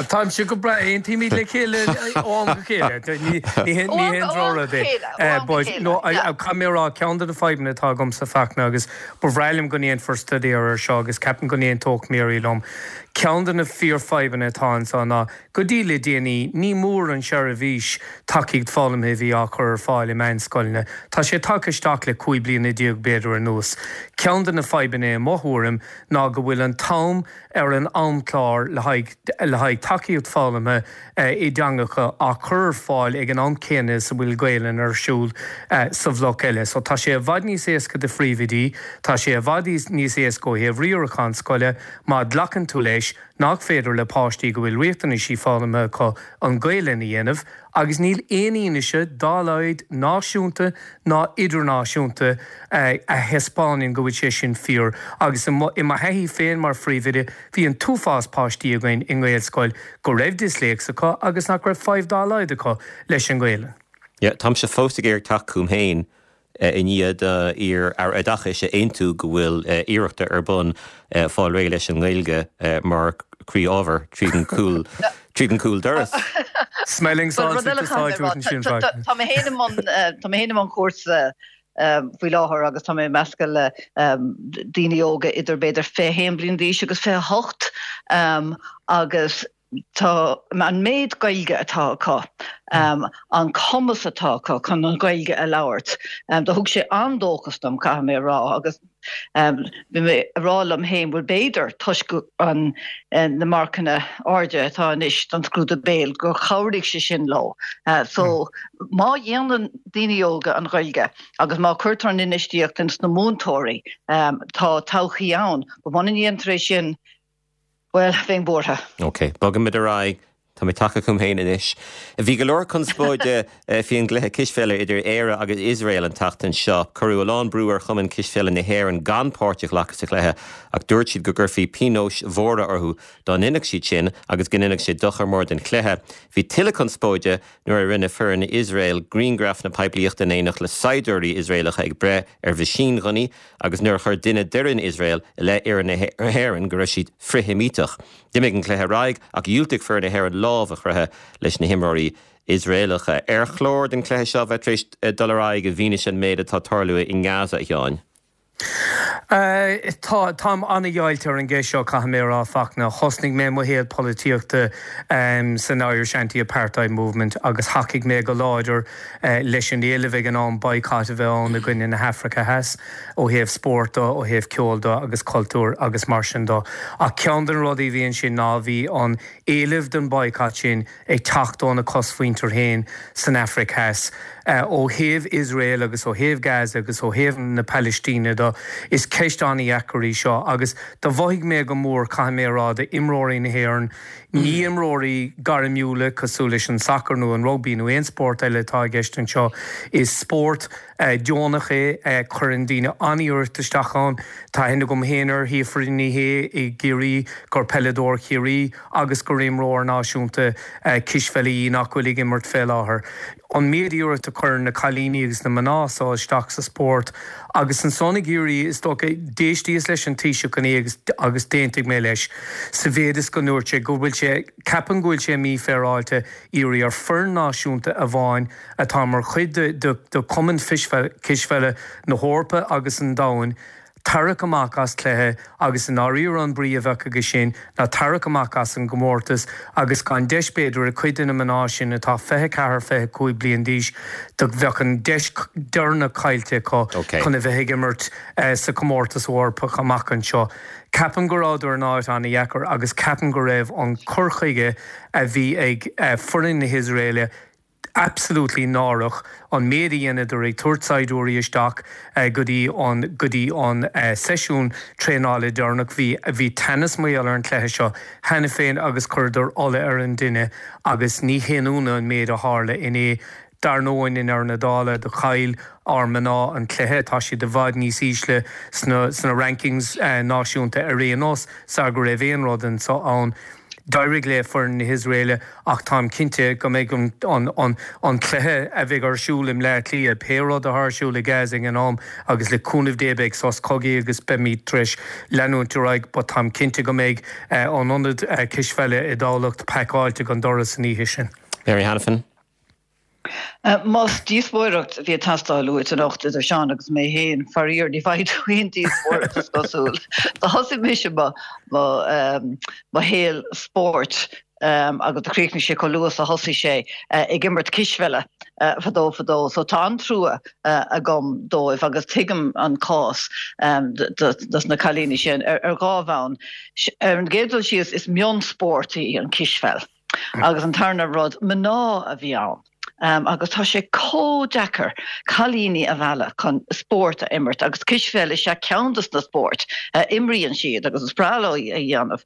Táimse go breá, aontaímid le chéile ó am go chéile. Ní haon drochrud é. But no, caithfidh mé a rá, ceann de na fadhbanna atá agamsa Fachtna, agus ba bhreá liom go ndéanfar staidéar air seo agus ceapaim go n-aontódh Mary liom, ceann de na fíorfhadhbanna atá anseo ná Go dtí le déanaí, ní mór an seirbhís tacaíocht foghlamtha a bhí á cur ar fáil i meánscoileanna. Tá sé tagtha isteach le 15 bliana b'fhéidir anuas. Ceann de na fadhbanna i mo thuairim ná go bhfuil an t-am ar an amchlár le haghaidh le haghaidh tacaíocht foghlamtha i dteangacha á cur ar fáil ag an am céanna is a bhfuil Gaelainn ar siúl sa bhloc eile. So tá sé i bhfad níos éasca do phríomhoidí, tá sé i bhfad níos éasca ó thaobh riarachán scoile má ghlacann tú leis nach féidir le páistí go bhfuil riachtanaisí foghlamtha acu an Ghaelainn a dhéanamh agus níl aon fhianaise dá laghad náisiúnta ná idirnáisiúnta a thaispeánann go bhfuil sé sin fíor agus i mo thaithí féin mar phríomhoide bhí an t-uafás páistí againn i nGaelscoil go raibh disléicse acu agus nach raibh fadhb dá laghad acu leis an nGaelainn. Yeah, táimse fós ag iarraidh teacht chugam féin i ndiaidh d'iar-Aire Oideachais a aontú go bhfuil iarrachta ar bun fáil réidh leis an nGaeilge mar chroí-ábhar tríd an gcúl tríd an gcúl doras. Smelling salts ag úsáid ansin freisin. Tá mé féin i mbun tá mé féin i mbun cúrsa faoi láthair agus tá mé ag meascadh le daoine óga idir b'fhéidir 21 bliain d'aois agus 28 agus Tá an méid Gaeilge atá acu, an cumas atá acu chun an Ghaeilge a labhairt, do thug sé an-dóchas dom, caithfidh mé a rá, agus bhí mé a rá liom féin, bhuel b'fhéidir, toisc an na marcanna airde atá anois don scrúdú béil, gur chabhraigh sé sin leo. So má dhéanann daoine óga an Ghaeilge agus má cuirtear an infheistíocht ins na múinteoirí, tá todhchaí ann. But muna ndéantar é sin, Bhuel, bheinn buartha. Ok, bogaimid ar aghaidh. Tá mé tagtha chugam féin anois. Bhí go leor conspóide faoi an gcluiche cispheile idir Éire agus Iosrael an tseachtain seo. Cuireadh a lán brú ar Chumann Cispheile na hÉireann gan páirt a ghlacadh sa chluiche ach dúirt siad go gcuirfí pionóis mhóra orthu dá ndéanfadh siad sin agus go ndéanfadh sé dochar mór don chluiche. Bhí tuilleadh conspóide nuair a rinne foireann Iosrael grianghrafanna poiblíochta in éineacht le saighdiúirí Iosraelacha ag breith ar mheaisínghunnaí agus nuair a chuir duine d'fhoireann Iosrael i leith fhoireann na hÉireann go raibh siad frith-Sheimíteach. D'imigh an cluiche ar aghaidh ach dhiúltaigh foireann na hÉireann lámh a chroitheadh leis na himreoirí Iosraelacha. Ar chóir don chluiche seo bheith tar éis dul ar aghaidh i bhfianaise an méid atá ag tarlú i nGaza, a Sheáin? Tá, táim an-dheighilte ar an gceist seo, caithfidh mé a rá, Fachtna. Thosnaigh mé mo shaol polaitíochta san Irish Anti-Apartheid Movement agus thacaigh mé go láidir leis an éileamh ag an am boycott a bheith ann i gcoinne na hAfraice Theas ó thaobh spóirt de, ó thaobh ceoil de agus cultúir agus mar sin de. Ach ceann de na rudaí a bhí ansin ná bhí an éileamh don boycott sin ag teacht óna cosmhuintir féin san Afraic Theas. Ó thaobh Iosrael agus ó thaobh Gaza agus ó thaobh na Palaistíne de. seo. Is ceist an-dheacair í seo agus do mhothaigh mé go mór, caithfidh mé a rá, do imreoirí na hÉireann, ní imreoirí gairmiúla cosúil leis an sacar nó an rugbaí nó aon spórt eile atá i gceist anseo. Is spórt deonach é, cuireann daoine an-iarracht isteach ann. Tá aithne agam féin ar Shíofra Ní Shé i gCiarraí, gur peileadóir Chiarraí agus gur imreoir náisiúnta cispheile í nach bhfuil ag imirt fé láthair. An méid iarracht a chuireann na cailíní agus na mná so isteach sa spórt agus ansan ag iarraidh, is dócha, d'éistíos leis an Taoiseach inné agus agus d'aontaigh mé leis sa mhéid is go ndúirt sé go bhfuil sé, ceapaim go bhfuil sé mífhéaráilte iarraidh ar foireann náisiúnta amháin atá mar chuid de de Chumann Cispheile na hEorpa agus an Domhain tarrac amach as cluiche agus i ndáiríre an brí a bheadh aige sin ná tarrac amach as an gcomórtas agus gan deis b'fhéidir ag cuid de na mná sin atá 24, 25 bliain d'aois do bheadh an deis deireanach caillte acu chun a bheith ag imirt sa chomórtas Eorpach amach anseo. Ceapaim go rabhadar in áit an-dheacair agus ceapaim go raibh an cur chuige a bhí ag foireann na hIosraeile absolutely náireach an méid a dheineadar ag tabhairt saighdiúirí isteach go dtí an go dtí an seisiún traenála deireanach. Bhí bhí teannas mar gheall ar an chluiche seo cheana féin agus chuireadar ola ar an dtine agus ní haon ionadh an méid a tharla inné. Dar ndóigh i ndeireadh na dála do chaill ár mná an cluiche. Tá siad i bhfad níos ísle sna sna rankings náisiúnta ar aon nós sar go raibh aon rud anso ann. D'éirigh le foireann na hIosraeile ach táim cinnte go mbeidh an cluiche a bheidh ar siúl i mBleá Cliath, pé rud atá ar siúl i Gaza ag an am, agus le cúnamh Dé beidh sos cogaidh agus beimid tar éis leanúint ar aghaidh, but táim cinnte go mbeidh an ionad cispheile i dTamhlacht pacáilte go doras an oíche sin. Mary Hanafin. Más díospóireacht a bhí ag teastáil uait anocht idir Seán agus mé féin, faraor ní bhfaighidh tú aon díospóireacht is cosúil. Do thosaigh mise mo mo shaol spóirt agus do chríochnaigh sé chomh luath is a thosaigh sé ag imirt cispheile fadó fadó so tá an-trua agam dóibh agus tuigim an cás dos na cailíní sin ar dhá bhonn. Ar an gcéad dul síos is mionspórt í an cispheil. Agus an tarna rud, mná a bhí ann. Agus tá sé chomh deacair cailíní a mhealladh chun spórt a imirt agus cispheil is ea ceann dos na spóirt a imríonn siad agus is breá leo a dhéanamh.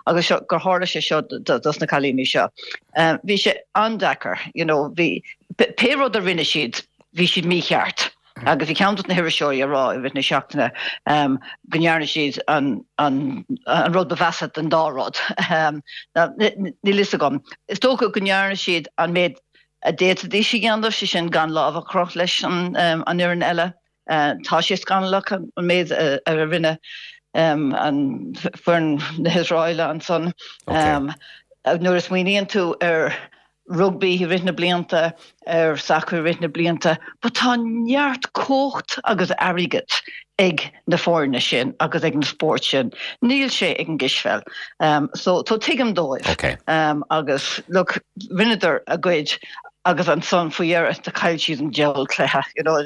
Agus seo, gur tharla sé seo dos na cailíní seo. Bhí sé an-deacair, you know, bhí, pé rud a rinne siad, bhí siad mícheart. Agus bhí ceann dos na hiriseoirí ag rá i rith na seachtaine go ndearna siad an rud ba mheasa den dá rud. Níl fhios agam. Is dócha go ndearna siad an méid a d'fhéadfaidís a dhéanamh, sé sin gan lámh a chroitheadh leis an fhoireann eile. Tá sé scannalach an méid a rinne an foireann na hIosraeile ansan. Nuair a smaoiníonn tú ar rugbaí i rith na blianta, ar sacar i rith na blianta, but tá neart cumhacht agus airgead ag na foirne sin agus ag na spóirt sin. Níl sé ag an gcispheil. So so tuigim dóibh. Okay. Agus look, rinneadar a gcuid agus ansan faoi dheireadh do chaill siad an diabhal cluiche, you know,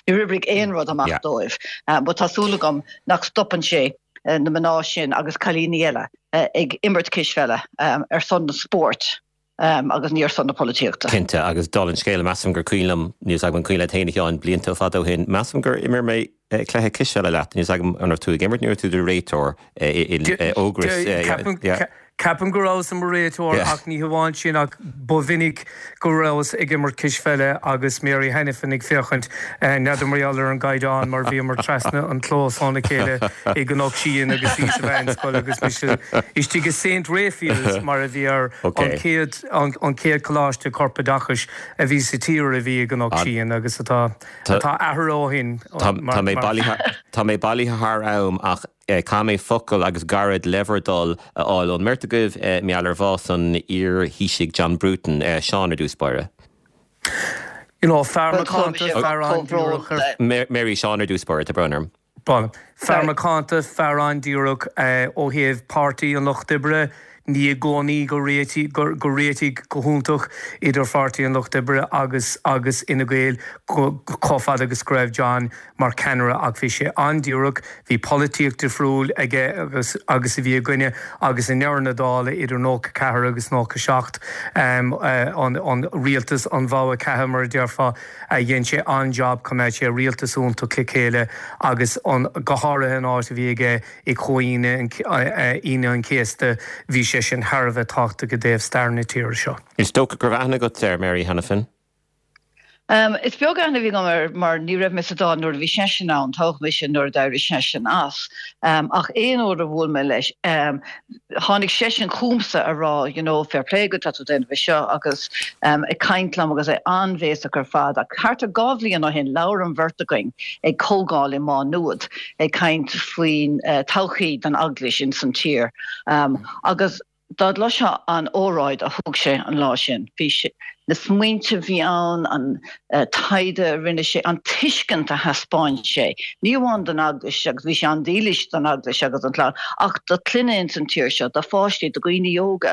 níor oibrigh aon rud amach Yeah. dóibh. But tá súil agam nach stopann sé na mná sin agus cailíní eile ag imirt cispheile ar son na spóirt agus ní ar son na polaitíochta. Cinnte, agus dála an scéil, measaim gur cuimhin liom, níl 'fhios agam an cuimhin leat féin a Sheáin, blianta fada ó shin, measaim gur imir mé cluiche cispheile leat, níl 'fhios agam an raibh tú ag imirt nó raibh tú i do réiteoir in Ógras. Ceapaim go rabhas i mo réiteoir ach ní hamháin sin ach ba mhinic go rabhas ag imirt cispheile agus Mary Hanafin ag féachaint, n'fheadar mar gheall ar an gcaighdeán mar bhíomar trasna an clós óna chéile i gCnoc Síon agus í sa mheánscoil agus mise istigh i Saint Raphael's mar a bhí air, an chéad an chéad choláiste corpoideachais a bhí sa tír a bhí i gCnoc Síon agus atá atá athraithe ó shin Tá mé bailithe tá mé bailithe thar am ach Caithfidh mé focal agus gairid le bhur dtoil a fháil ón mbeirt agaibh mar gheall ar bhás an iar-Thaoisigh John Bruton. Seán ar dtús báire. You know, fear macánta, fear an-díreach ar. Mary, Seán ar dtús báire, tá brón orm. Bhuel, fear macánta, fear an-díreach ó thaobh Páirtí an Lucht Oibre. Ní i gcónaí gur réitigh gur réitigh go hiontach idir Pháirtí an Lucht Oibre agus agus Fhine Gael chomh fada agus go raibh John mar cheannaire ach bhí sé an-díreach, bhí polaitíocht difriúil aige agus agus a bhí againne agus i ndeireadh na dála idir 94 agus 97 an an rialtas an bhogha ceatha mar a déarfá dhein sé an-jab choimeád sé rialtas iontach le chéile agus an go háirithe an áit a bhí aige i Comhaoine Aoine an Chéasta, bhí sé sin thar a bheith tábhachtach i dtaobh stair na tíre seo. Is dócha go raibh aithne agat air, Mary Hanafin? Is beag aithne a bhí agam air mar ní raibh mé sa Dáil nuair a bhí seisean ann, toghadh mise nuair a d'éirigh seisean as. Ach aon uair a bhuail mé leis, tháinig seisean chugamsa a rá you know fair play agat, tá tú ag déanamh é seo agus ag caint liom agus é an-bhéasach ar fad. Ach thart ar 2 bhliain ó shin labhair an bheirt againn ag comhdháil i Má Nuad ag caint faoin todhchaí don Eaglais ins an tír agus dá gcloisfeá an óráid a thug sé an lá sin, bhí sé, na smaointe a bhí ann, an taighde a rinne sé, an tuiscint a thaispeáin sé, ní amháin don Eaglais, agus bhí sé an-dílis don Eaglais agus don chlann, ach do chlanna ins an tír seo, do pháistí, do dhaoine óga,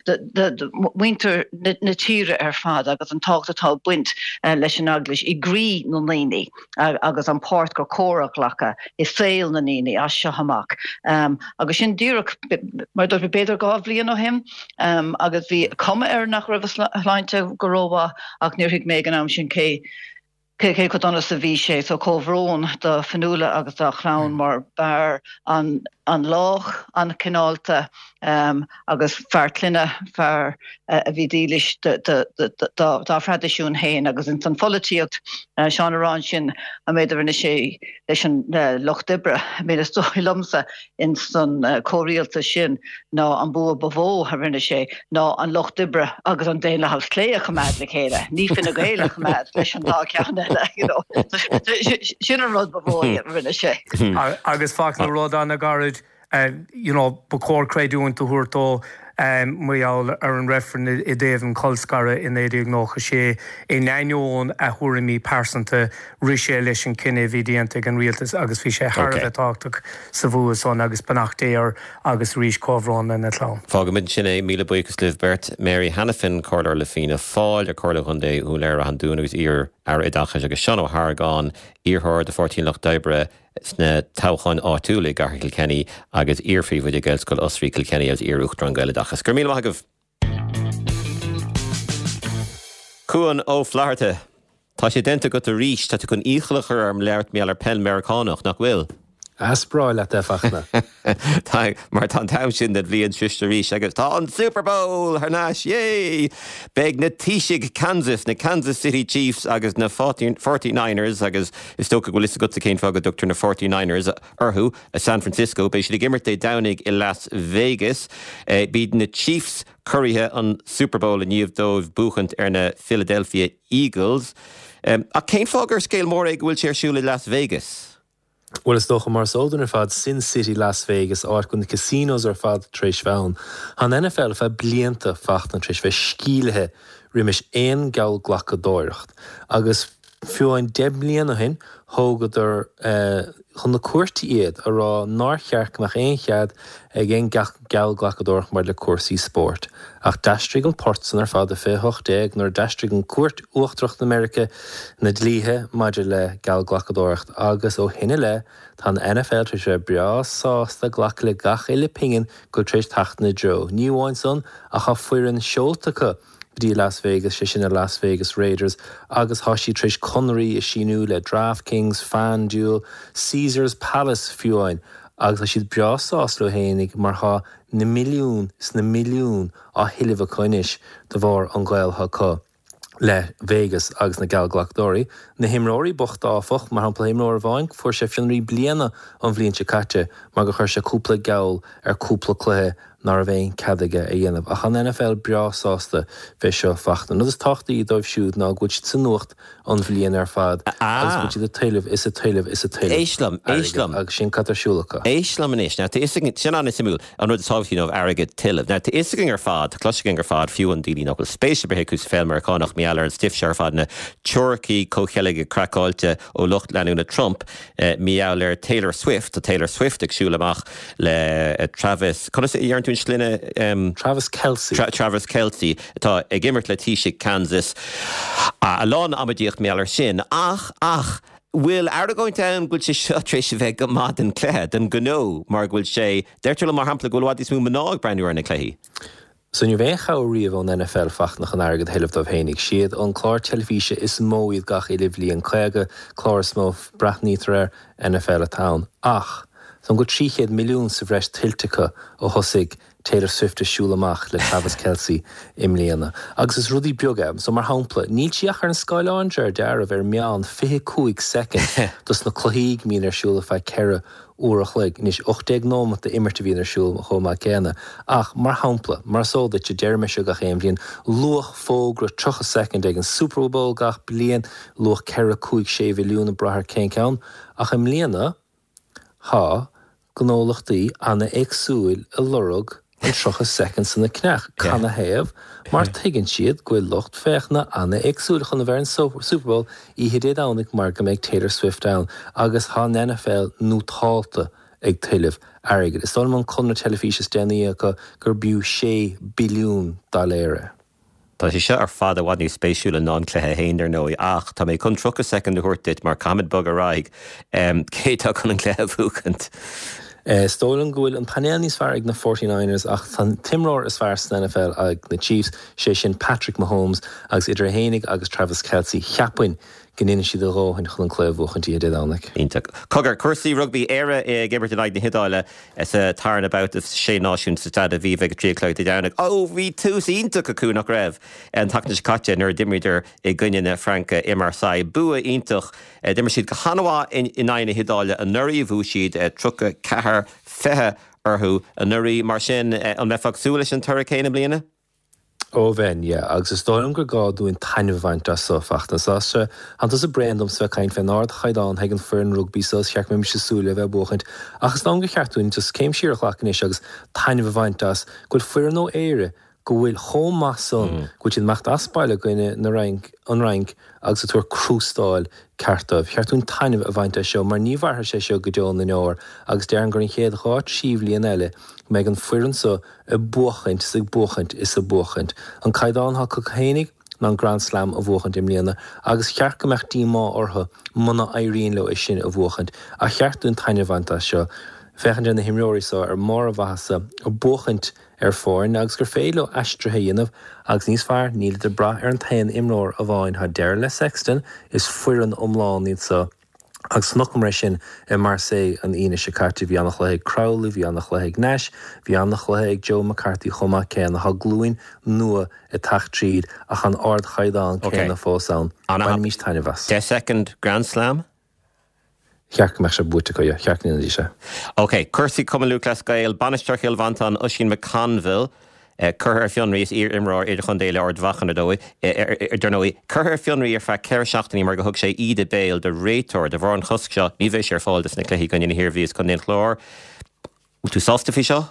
do mhuintir na tíre ar fad agus an tábhacht atá ag baint leis an Eaglais i gcroí na ndaoine. agus an páirt gur cóir a ghlacadh i saol na ndaoine as seo amach. Agus sin díreach, mar a dúirt mé, b'fhéidir 2 bhliain ó shin, agus bhí cuma air nach raibh a shláinte go rómhaith ach níor thuig mé ag an am sin cé cé chomh dona is a bhí sé. So comhbhrón do Fionnuala agus dá chlann mar b'fhear an-lách, an-chineálta agus fear clainne, fear a bhí dílis dá thraidisiún féin agus ins an pholaitíocht. Seán ag rá ansin an méid a rinne sé leis an Lucht Oibre. I mean is dóigh liomsa ins an comhrialtas sin ná an bua ba mhó a rinne sé ná an Lucht Oibre agus an Daonlathas Clé a choimeád le chéile, ní Fine Gael a choimeád leis an dá cheann eile, you know. Sin an rud ba mhó a rinne sé. Agus Fachtna, rud an-ghairid, you know, ba chóir creidiúint a thabhairt dó mar gheall ar an reifreann i dtaobh an cholscaradh i 1996. In ainneoin a thuairimí pearsanta, rith sé leis an cinneadh a bhí déanta ag an rialtas agus bhí sé thar a bheith tábhachtach sa bhua san agus beannacht Dé air agus arís comhbhrón lena chlann. Fágfaimid ansin é. Míle buíochas libh beirt. Mary Hanafin, Comhairleoir le Fianna Fáil ar Chomhairle Chontae Dhún Laoghaire-Rath an Dúin agus iar-Aire Oideachais agus Seán Ó hArgáin, iarrthóir do Pháirtí an Lucht Oibre sna toghcháin áitiúla i gCathair Kilkenny agus iar-phríomhoide Gaelscoil Osraí Kilkenny agus iar-Uachtarán Gaeloideachas. Go raibh míle maith agaibh. Cuan Ó Flatharta, Tá sé déanta agat arís, tá tú chun iachall a chur orm labhairt mar gheall ar peil Meiriceánach, nach bhfuil? Is breá leat é, Fachtna. Tá, mar tá an t-am sin den bhliain sroiste arís agus tá an Super Bowl thar n-ais, yay! Beidh na Taoisigh Kansas, na Kansas City Chiefs agus na Forty Niners, agus is dócha go bhfuil fhios agatsa cén fáth go dtugtar na Forty Niners orthu, i San Francisco. Beidh siad ag imirt Dé Domhnaigh i Las Vegas. B'iad na Chiefs curaithe an Super Bowl i ndiaidh dóibh buachaint ar na Philadelphia Eagles. Ach cén fáth gur scéal mór é go bhfuil sé ar siúl i Las Vegas? Bhuel, is dócha, mar is eol dúinn ar fad, Sin City Las Vegas, áit go bhfuil na casinos ar fad tar éis bheith ann. Tá an NFL ar feadh blianta, Fachtna, tar éis bheith sceimhlithe roimis aon gheallghlacadóireacht. Agus fiú amháin 10 mbliana ó shin, thógadar chun na cúirte iad, a rá nár cheart go mbeadh aon chead ag aon geallghlacadóireacht maidir le cúrsaí spóirt. Ach d'aistrigh an port san ar fad i 2018 nuair a d'aistrigh an Cúirt Uachtarach na Meirice na dlíthe maidir le geallghlacadóireacht agus ó shin i leith tá an NFL tar éis a bheith breá sásta glacadh le gach uile pingin go bhfuil tar éis teacht ina dtreo. Ní amháin san ach tá foireann seolta acu go dtí Las Vegas, sé sin na Las Vegas Raiders agus tá siad tar éis conraí a síniú le DraftKings, FanDuel, Caesars Palace fiú amháin agus tá siad breá sásta leo fhéinig mar tá na milliúin is na milliúin á thuilleamh acu anois de bharr an gaol atá acu le Vegas agus na geallghlacadóirí. Na himreoirí bochta áfach, mar shampla imreoir amháin fuair sé fionraí bliana an bhliain seo caite mar gur chuir sé cúpla geall ar cúpla cluiche ná raibh aon cead aige a dhéanamh. Ach an NFL breá sásta fé seo Fachtna. An rud is tábhachtaí dóibh siúd ná go bhfuil siad sa nuacht an bhliain ar fad agus go bhfuil siad ag tuilleamh is ag tuilleamh is ag tuilleamh Éist liom, éist airgid liom. agus sin cad tá ar siúl acu. Éist liom anois. Now tá fhios againn, sin an-suimiúil, an rud is tábhachtaí dóibh airgead tuilleamh. Now tá fhios againn ar fad, tá cloiste againn ar fad, fiú an daoine nach bhfuil spéis ar bith acu sa pheil Meiriceánach, mar gheall ar an stuif seo ar fad, na teoiricí comhcheilge craiceáilte ó lucht leanúna Trump, mar gheall ar Taylor Swift, tá Taylor Swift ag siúl amach le Travis, conas a deireann tú? tú an sloinne? Travis Kelce. Travis Kelce, atá ag imirt le Taoisigh Kansas. A lán amaidíocht mar gheall air sin. Ach, ach, bhfuil argóint ann go bhfuil sé seo tar éis a bheith go maith don chluiche, don ghnó, mar go bhfuil sé, deirtear liom mar shampla go bhfuil i bhfad níos mó mná ag breathnú ar na cluichí. So ní raibh aon chabhair riamh ón NFL Fachtna chun airgead a thuilleamh dóibh fhéinig. Siad an clár teilifíse is mó iad gach uile bhliain, 50 clár is mó breathnaítear air, NFL atá ann. Ach, tá go 300 milliún sa bhreis tuillte acu ó thosaigh Taylor Swift ag siúl amach le Travis Kelce i mbliana. Agus is rudaí beaga é. So mar shampla, níl sí ach ar an scáileán de réir dealraimh ar meán 25 soicind dos na cluichí go mbíonn ar siúl ar feadh 4 uair a chloig. Anois, 18 nóimeat d'imirt a bhíonn ar siúl chomh maith céanna. Ach, mar shampla, mar is eol duit, deirim é seo gach aon bhliain, luach fógra 30 soicind ag an Super Bowl gach bliain, luach 4, 5, 6 mhilliún ag brath ar cén ceann. Ach i mbliana, tá gnólachtaí ana-éagsúil ag lorg an 30 soicind san a cheannach. Canathaobh? Mar tuigeann siad go bhfuil lucht féachana an-éagsúil chun a bheith ar an Super Bowl oíche Dé Domhnaigh mar go mbeidh Taylor Swift ann agus tá an NFL nótálta ag tuilleamh airgid. Is dóigh liom an conradh teilifíse is déanaí acu gur b'fhiú 6 billiún dollar é. Tá sé seo ar fad i bhfad níos spéisiúla ná an cluiche féin, dar ndóigh, ach tá mé chun 30 soicind a thabhairt duit mar caithfimid bogadh ar aghaidh. Cé atá chun an cluiche a bhuachaint? Is dóigh liom go bhfuil an painéal níos fearr ag na Forty Niners ach tá an t-imreoir is fearr san NFL ag na Chiefs, sé sin Patrick Mahomes, agus idir é fhéinig agus Travis Kelce, cheapfainn go ndéanfaidh siad a dhóthain chun an cluiche a bhuachaint oíche Dé Domhnaigh. Iontach. Cogar, cúrsaí rugbaí, Éire ag imirt in aghaidh na hIodáile sa tarna babhta Sé Náisiún sa Staid Aviva ag a 3 a chlog Dé Domhnaigh. Ó, bhí tús iontach acu, nach raibh, an tseachtain seo caite nuair a d'imríodar i gcoinne na Fraince i Marseille. Bua iontach. D'imir siad go han-mhaith in aghaidh na hIodáile anuraidh, bhuaigh siad 34, 20 orthu anuraidh. Mar sin, an mbeifeá ag súil leis an toradh céanna i mbliana? Ó bheinn, yeah. Agus is dóigh liom gur gá dúinn taitneamh a bhaint as so, Fachtna. Tá sé, tánn tusa bréan domsa bheith ag caint fén ardchaighdeán atá ag an foireann rugbaí so, is cheart go mbeimis ag súil le bheith ag buachaint. Ach is dóigh liom gur cheart dúinn just céim siar a ghlacadh anois agus taitneamh a bhaint as go bhfuil foireann ó Éire go bhfuil chomh maith san, go bhfuil siad ag imeacht as baile i gcoinne na Fhrainc, an Fhrainc agus ag tabhairt crústáil ceart dóibh. Cheart dúinn taitneamh a bhaint as seo mar ní mhairfidh sé seo go deo na ndeor agus déarfainn gur an chéad dhá trí bhliain eile go mbeidh an foireann so ag buachaint is ag buachaint is ag buachaint. An caighdeán atá acu fhéinig ná an Grand Slam a bhuachaint i mbliana agus cheart go mbeadh díomá orthu muna éiríonn leo é sin a bhuachaint. Ach cheart dúinn taitneamh a bhaint as seo, féachaint ar na himreoirí so ar mbarr a mhaitheasa, ag buachaint ar foirne agus gur féidir leo aistrithe a dhéanamh agus níos fearr, nílid ag brath ar an t-aon imreoir amháin. Tá deireadh le Sexton, is foireann iomlán iad so. Agus chonaiceamar é sin i Marseille an Aoine seo caite. Bhí an-chluiche ag Crowley, bhí an-chluiche ag Nash, bhí an-chluiche ag Joe McCarthy chomh maith céanna. Tá glúin nua ag teacht tríd ach an ardchaighdeán céanna fós ann. Bainimís taitneamh as. 10 soicind Grand Slam? Cheart go mbeadh sé buaite acu, yeah. Cheart go ndéanfaidís é. Ok, cúrsaí Cumann Lúthchleas Gael, Bainisteoir Chill Mhantáin, Oisín McConville, curtha ar fionraí, is iar-imreoir idirchontae le Ard Mhacha, ar ndóigh, dar ndóigh, curtha ar fionraí ar feadh 4 seachtainí mar gur thug sé íde béil do réiteoir. De bharr an chosc seo, ní bheidh sé ar fáil dos na cluichí i gcoinne na hIarmhí is Contae an Chláir. Bhfuil tú sásta faoi seo?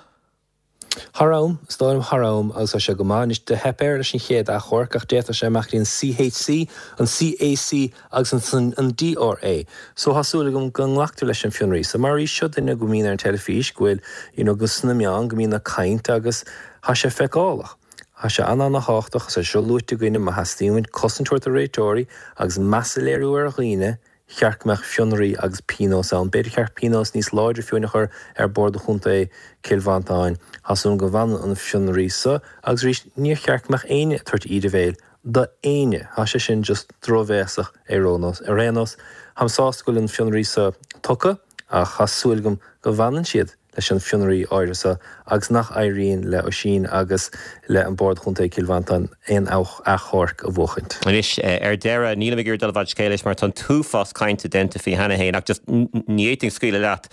Thar am, is dóigh liom, thar am, agus tá sé go maith. Anois, do theip air leis an chéad achomharc ach d'fhéadfadh sé imeacht go dtí an CHC, an CAC agus ansan an DRA. So tá súil agam go nglactar leis an fionraí. So mar arís, seo duine go mbíonn ar an teilifís, go bhfuil, you know, go sna meáin, go mbíonn ag caint agus tá sé feiceálach. Tá sé an-an-thábhachtach, agus é seo luaite againne, má theastaíonn uainn cosaint a thabhairt do réiteoirí agus meas a léiriú ar dhaoine, cheart go mbeadh fionraí agus pionós ann. B'fhéidir cheart pionós níos láidre fiú a chur ar Bhord Chontae Chill Mhantáin. Tá súil agam go bhfanann an fionraí so agus arís níor cheart go mbeadh éinne ag tabhairt íde bhéil do éinne. Tá sé sin just drochbhéasach ar aon nós. Ar aon nós, táim sásta go bhfuil an fionraí so tugtha ach tá súil agam go bhfanann siad leis an fionraí áirithe so agus nach éiríonn le Oisín agus le an Bord Chontae Cill Mhantáin aon achomharc a bhuachaint. Anois, ar deireadh, nílim ag iarraidh dul i bhfad scéil leis mar tá an t-uafás cainte déanta faoi cheana féin ach just ní fhéadfainn scaoileadh leat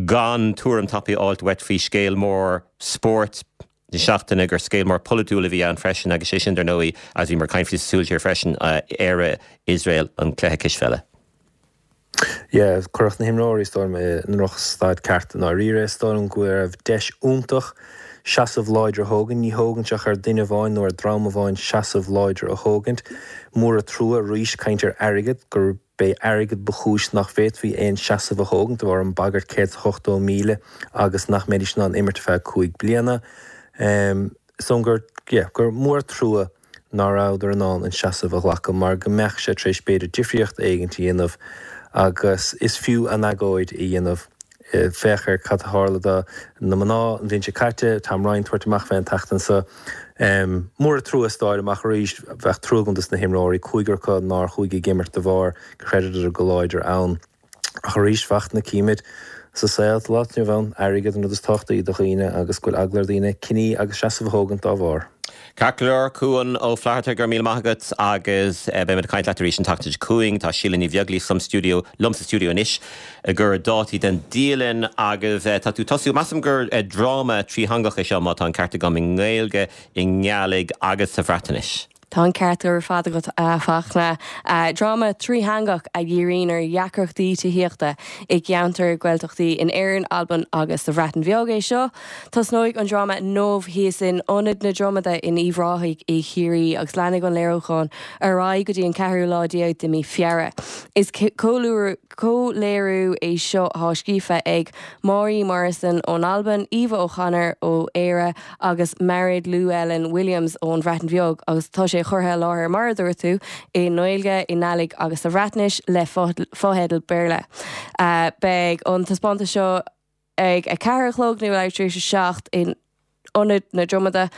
gan tuairim tapaidh a fháilt uait faoi scéal mór spóirt na seachtaine gur scéal mór polaitiúil a bhí ann freisin agus sé sin dar ndóigh, agus bhíomar ag caint faoi sa Súil Siar freisin, Éire, Iosrael, an cluiche cispheile. Yeah, cuireadh na himreoirí, is dóigh liom, i ndrochstaid ceart i ndáiríre. Is dóigh liom go raibh deis iontach seasamh láidir a thógaint. Ní thógann sé ach ar duine amháin nó ar dream amháin seasamh láidir a thógaint. Mór an trua arís, caint ar airgead, gur. b'é airgead ba chúis nach bhféadfaí aon seasamh a thógaint de bharr an bagairt 180,000 agus nach mbeidís in ann imirt ar feadh 5 bliana. Is dóigh gur, yeah, gur mór trua ná rabhadar in ann an seasamh a ghlacadh mar go mbeadh sé tar éis b'fhéidir difríocht éigint a dhéanamh agus is fiú an agóid a dhéanamh. Féach ar cad a tharla do na mná an bhliain seo caite, Tom Ryan tabhairt amach fé an tseachtain seo. Mór an trua is dáir amach arís, bheadh trua agam dos na himreoirí, cúigear acu nár chuaigh ag imirt de bharr gur chreideadar go láidir ann. Ach arís, Fachtna, címid sa saol sa lá atá inniu ann, airgead an rud is tábhachtaí do dhaoine agus go bhfuil eagla ar dhaoine cinní agus seasamh a thógaint dá bharr. Ceart go leor, Cuan Ó Flatharta, go raibh míle maith agat agus beidh muid ag caint leat arís an tseachtain seo chugainn. Tá Síle Ní Bheaglaoich sa stiúideo, liom sa stiúideo anois ag cur dátaí den dialann agus tá tú tosú, measaim gur dráma trítheangach é seo má tá an ceart agam, i nGaeilge, i nGàidhlig agus sa Bhreatnais. Tá an ceart ar fad agat, a Fachtna. Dráma trítheangach a dhíríonn ar dheacrachtaí tithíochta i gceantair Gaeltachtaí in Éirinn, Albain agus sa Bhreatain Bheag é seo. Tosnóidh an dráma inniu thíos in Ionad na Dromada in Uíbh Ráthaigh i Chiarraí agus leanfaidh an léiriúchán ar aghaidh go dtí an ceathrú lá déag de mí Feabhra. Is comhléiriú é seo atá scríofa ag Màiri Morrison ón Albain, Eva O'Connor ó Éire agus Mared Llewelyn Williams ón Bhreatain Bheag agus tá sé curtha i láthair, mar a dúirt tú, i nGaeilge, i nGàidhlig agus sa Bhreatnais le fotheidil Béarla. Beidh an taispeántas seo ag 4 a chlog nó leathuair tar éis a 7 in Ionad na Dromada.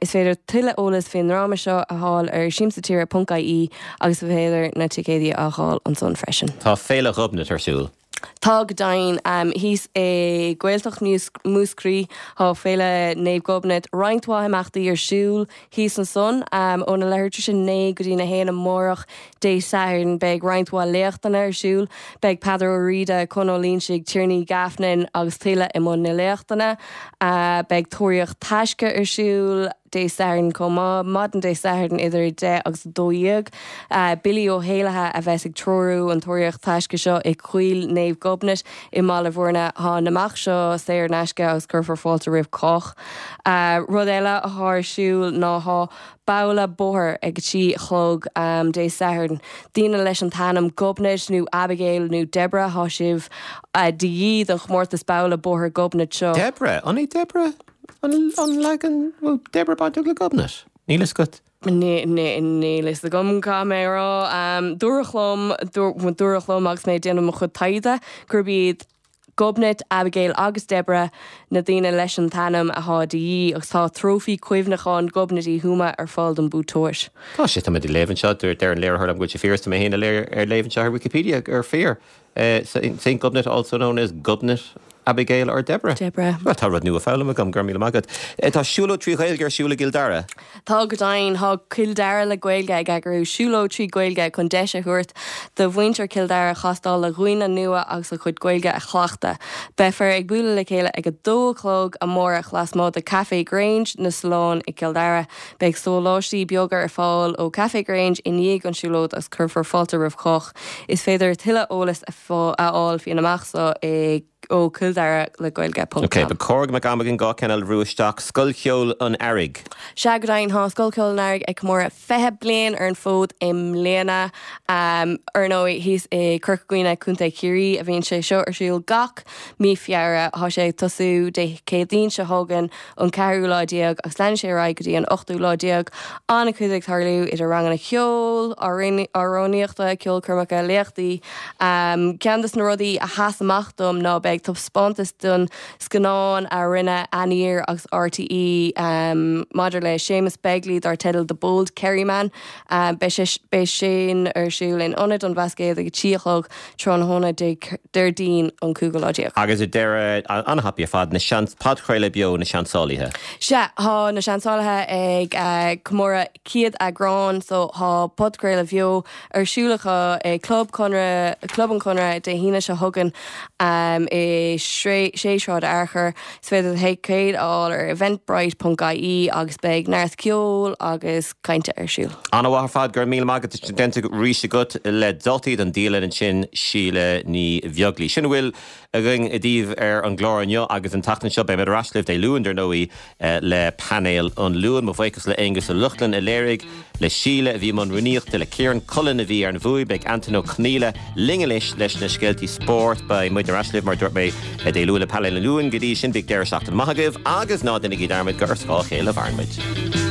Is féidir tuilleadh eolas faoin ndráma seo a fháil ar siamsatire.ie agus is féidir na ticéidí a fháil ansan freisin. Tá Féile Ghobnait ar siúl. Tá go deimhin. Thíos i Gaeltacht Mhúscraí tá Féile Naomh Gobnait, roinnt mhaith imeachtaí ar siúl thíos ansan. Óna leathuair tar éis a 9 go dtí'n 1 amárach, Dé Sathairn, beidh roinnt mhaith léachtanna ar siúl. Beidh Peadar Ó Riada, Con Ó Loingsigh, Tiarnaí Gaffnin agus tuilleadh i mbun na léachtanna. Beidh Tóraíocht Taisce ar siúl Dé Sathairn chomh maith, maidin Dé Sathairn idir 10 agus 12. Billy Ó hÉallaithe a bheas ag treorú an Tóraíocht Taisce seo i gCoill Naomh Gobnait i mBaile Bhuirne. Tá an imeacht seo saor in aisce agus cuirfear fáilte roimh chách. Rud eile atá ar siúl ná tá Babhla bóthair ag a 3 a chlog Dé Sathairn. Daoine leis an t-ainm Gobnait nó Abigail nó Deborah, thá sibh de dhíth don chomórtas Babhla Bóthair Gobnait seo. Deborah? An é Deborah an leagan, bhfuil Deborah bainteach le Gobnait? Níl fhios agat? Níl fhios agam, caithfidh mé a rá. Dúradh liom, dúradh liom agus mé ag déanamh mo chuid taighde gurb iad Gobnait, Abigail agus Deborah na daoine leis an t-ainm athá de dhíth agus tá trófaí cuimhneacháin Ghobnait Uí Thuama ar fáil don buaiteoir. Tá sé, tá mé ag léamh anseo, deir an léiritheoir liom go bhfuil sé fíor is tá mé féin ag léamh anseo ar Wikipedia gur fíor. Saint Gobnait also known as Gobnait, Abigail or Deborah. Deborah. Bhuel, tá rud nua foghlamtha agam, go raibh míle maith agat. Tá siúlóid 3 Ghaeilge ar siúl i gCill Dara. Tá go deimhin, tá Cill Dara le Gaeilge ag eagrú siúlóid 3 Ghaeilge chun deis a thabhairt do mhuintir Chill Dara castáil le dhaoine nua agus a gcuid Gaeilge a chleachtadh. Beifear ag bualadh le chéile ag 2 a chlog amárach lasmuigh de Café Grange, na Solláin i gCill Dara. Beidh sóláistí beaga ar fáil ó Café Grange i ndiaidh an siúlóid agus cuirfear fáilte roimh chách. Is féidir tuilleadh eolais a fháil faoin imeacht seo i. ó cilldaralegaeilge ponc Ok, com. ba chóir go mbeadh am againn 2 ceann eile a bhrú isteach. Scoil Cheoil an Earraigh. Sea, go deimhin, tá Scoil Cheoil an Earraigh ag comóradh 20 bliain ar an bhfód i mbliana. Ar ndóigh, thíos i Corca Dhuibhne, Contae Chiarraí, a bhíonn sé seo ar siúl gach mí Feabhra. Tá sé ag tosú Dé Céadaoin seo chugainn, an ceathrú lá déag, agus leanfaidh sé ar aghaidh go dtí an ochtú lá déag. An-chuid ag tarlú idir ranganna ceoil, amhránaíochta, ceolchoirmeacha, léachtaí. Ceann de na rudaí a sheas amach dom ná beidh taispeántas den scannán a rinne Aniar agus RTÉ maidir le Séamus Begley dar teideal The Bold Kerryman. Beidh sin ar siúl in Ionad an Bhlascaoid ag a 3 a chlog tráthnóna Déardaoin an cúigiú lá déag. Agus ar deireadh, an-thapaidh ar fad, na seans, podchraoladh beo Na Seansálaithe. Sea, tá Na Seansálaithe ag comóradh 100 eagrán so tá podchraoladh bheo ar siúl acu i Club Conradh, Club an Chonradh Dé hAoine seo chugainn. i 6 Sráid Fhearchair. Is féidir do thicéid a fháil ar eventbrite.ie agus beidh neart ceoil agus cainte ar siúl. An-mhaith ar fad, go raibh míle maith agat, déanta arís agat le dátaí don dialann ansin, Síle Ní Bheaglaoí. Sin a bhfuil againn daoibh ar an gclár inniu agus an tseachtain seo. Beidh muid ar ais libh Dé Luain, dar ndóigh, le Painéal an Luain. Mo bhuíochas le Aonghus Ó Lochlainn a léirigh, le Síle a bhí i mbun rúnaíochta, le Ciarán Cullen a bhí ar an bhfuaim. Beidh Antain Ó Conghaile linn anois leis na scéaltaí spóirt. Beidh muid ar ais libh, mar a dúirt mé, Dé Luain le Painéal an Luain. Go dtí sin, bíodh deireadh seachtaine maith agaibh agus ná déanaigí dearmad gur ar scáth a chéile a mhaireann muid.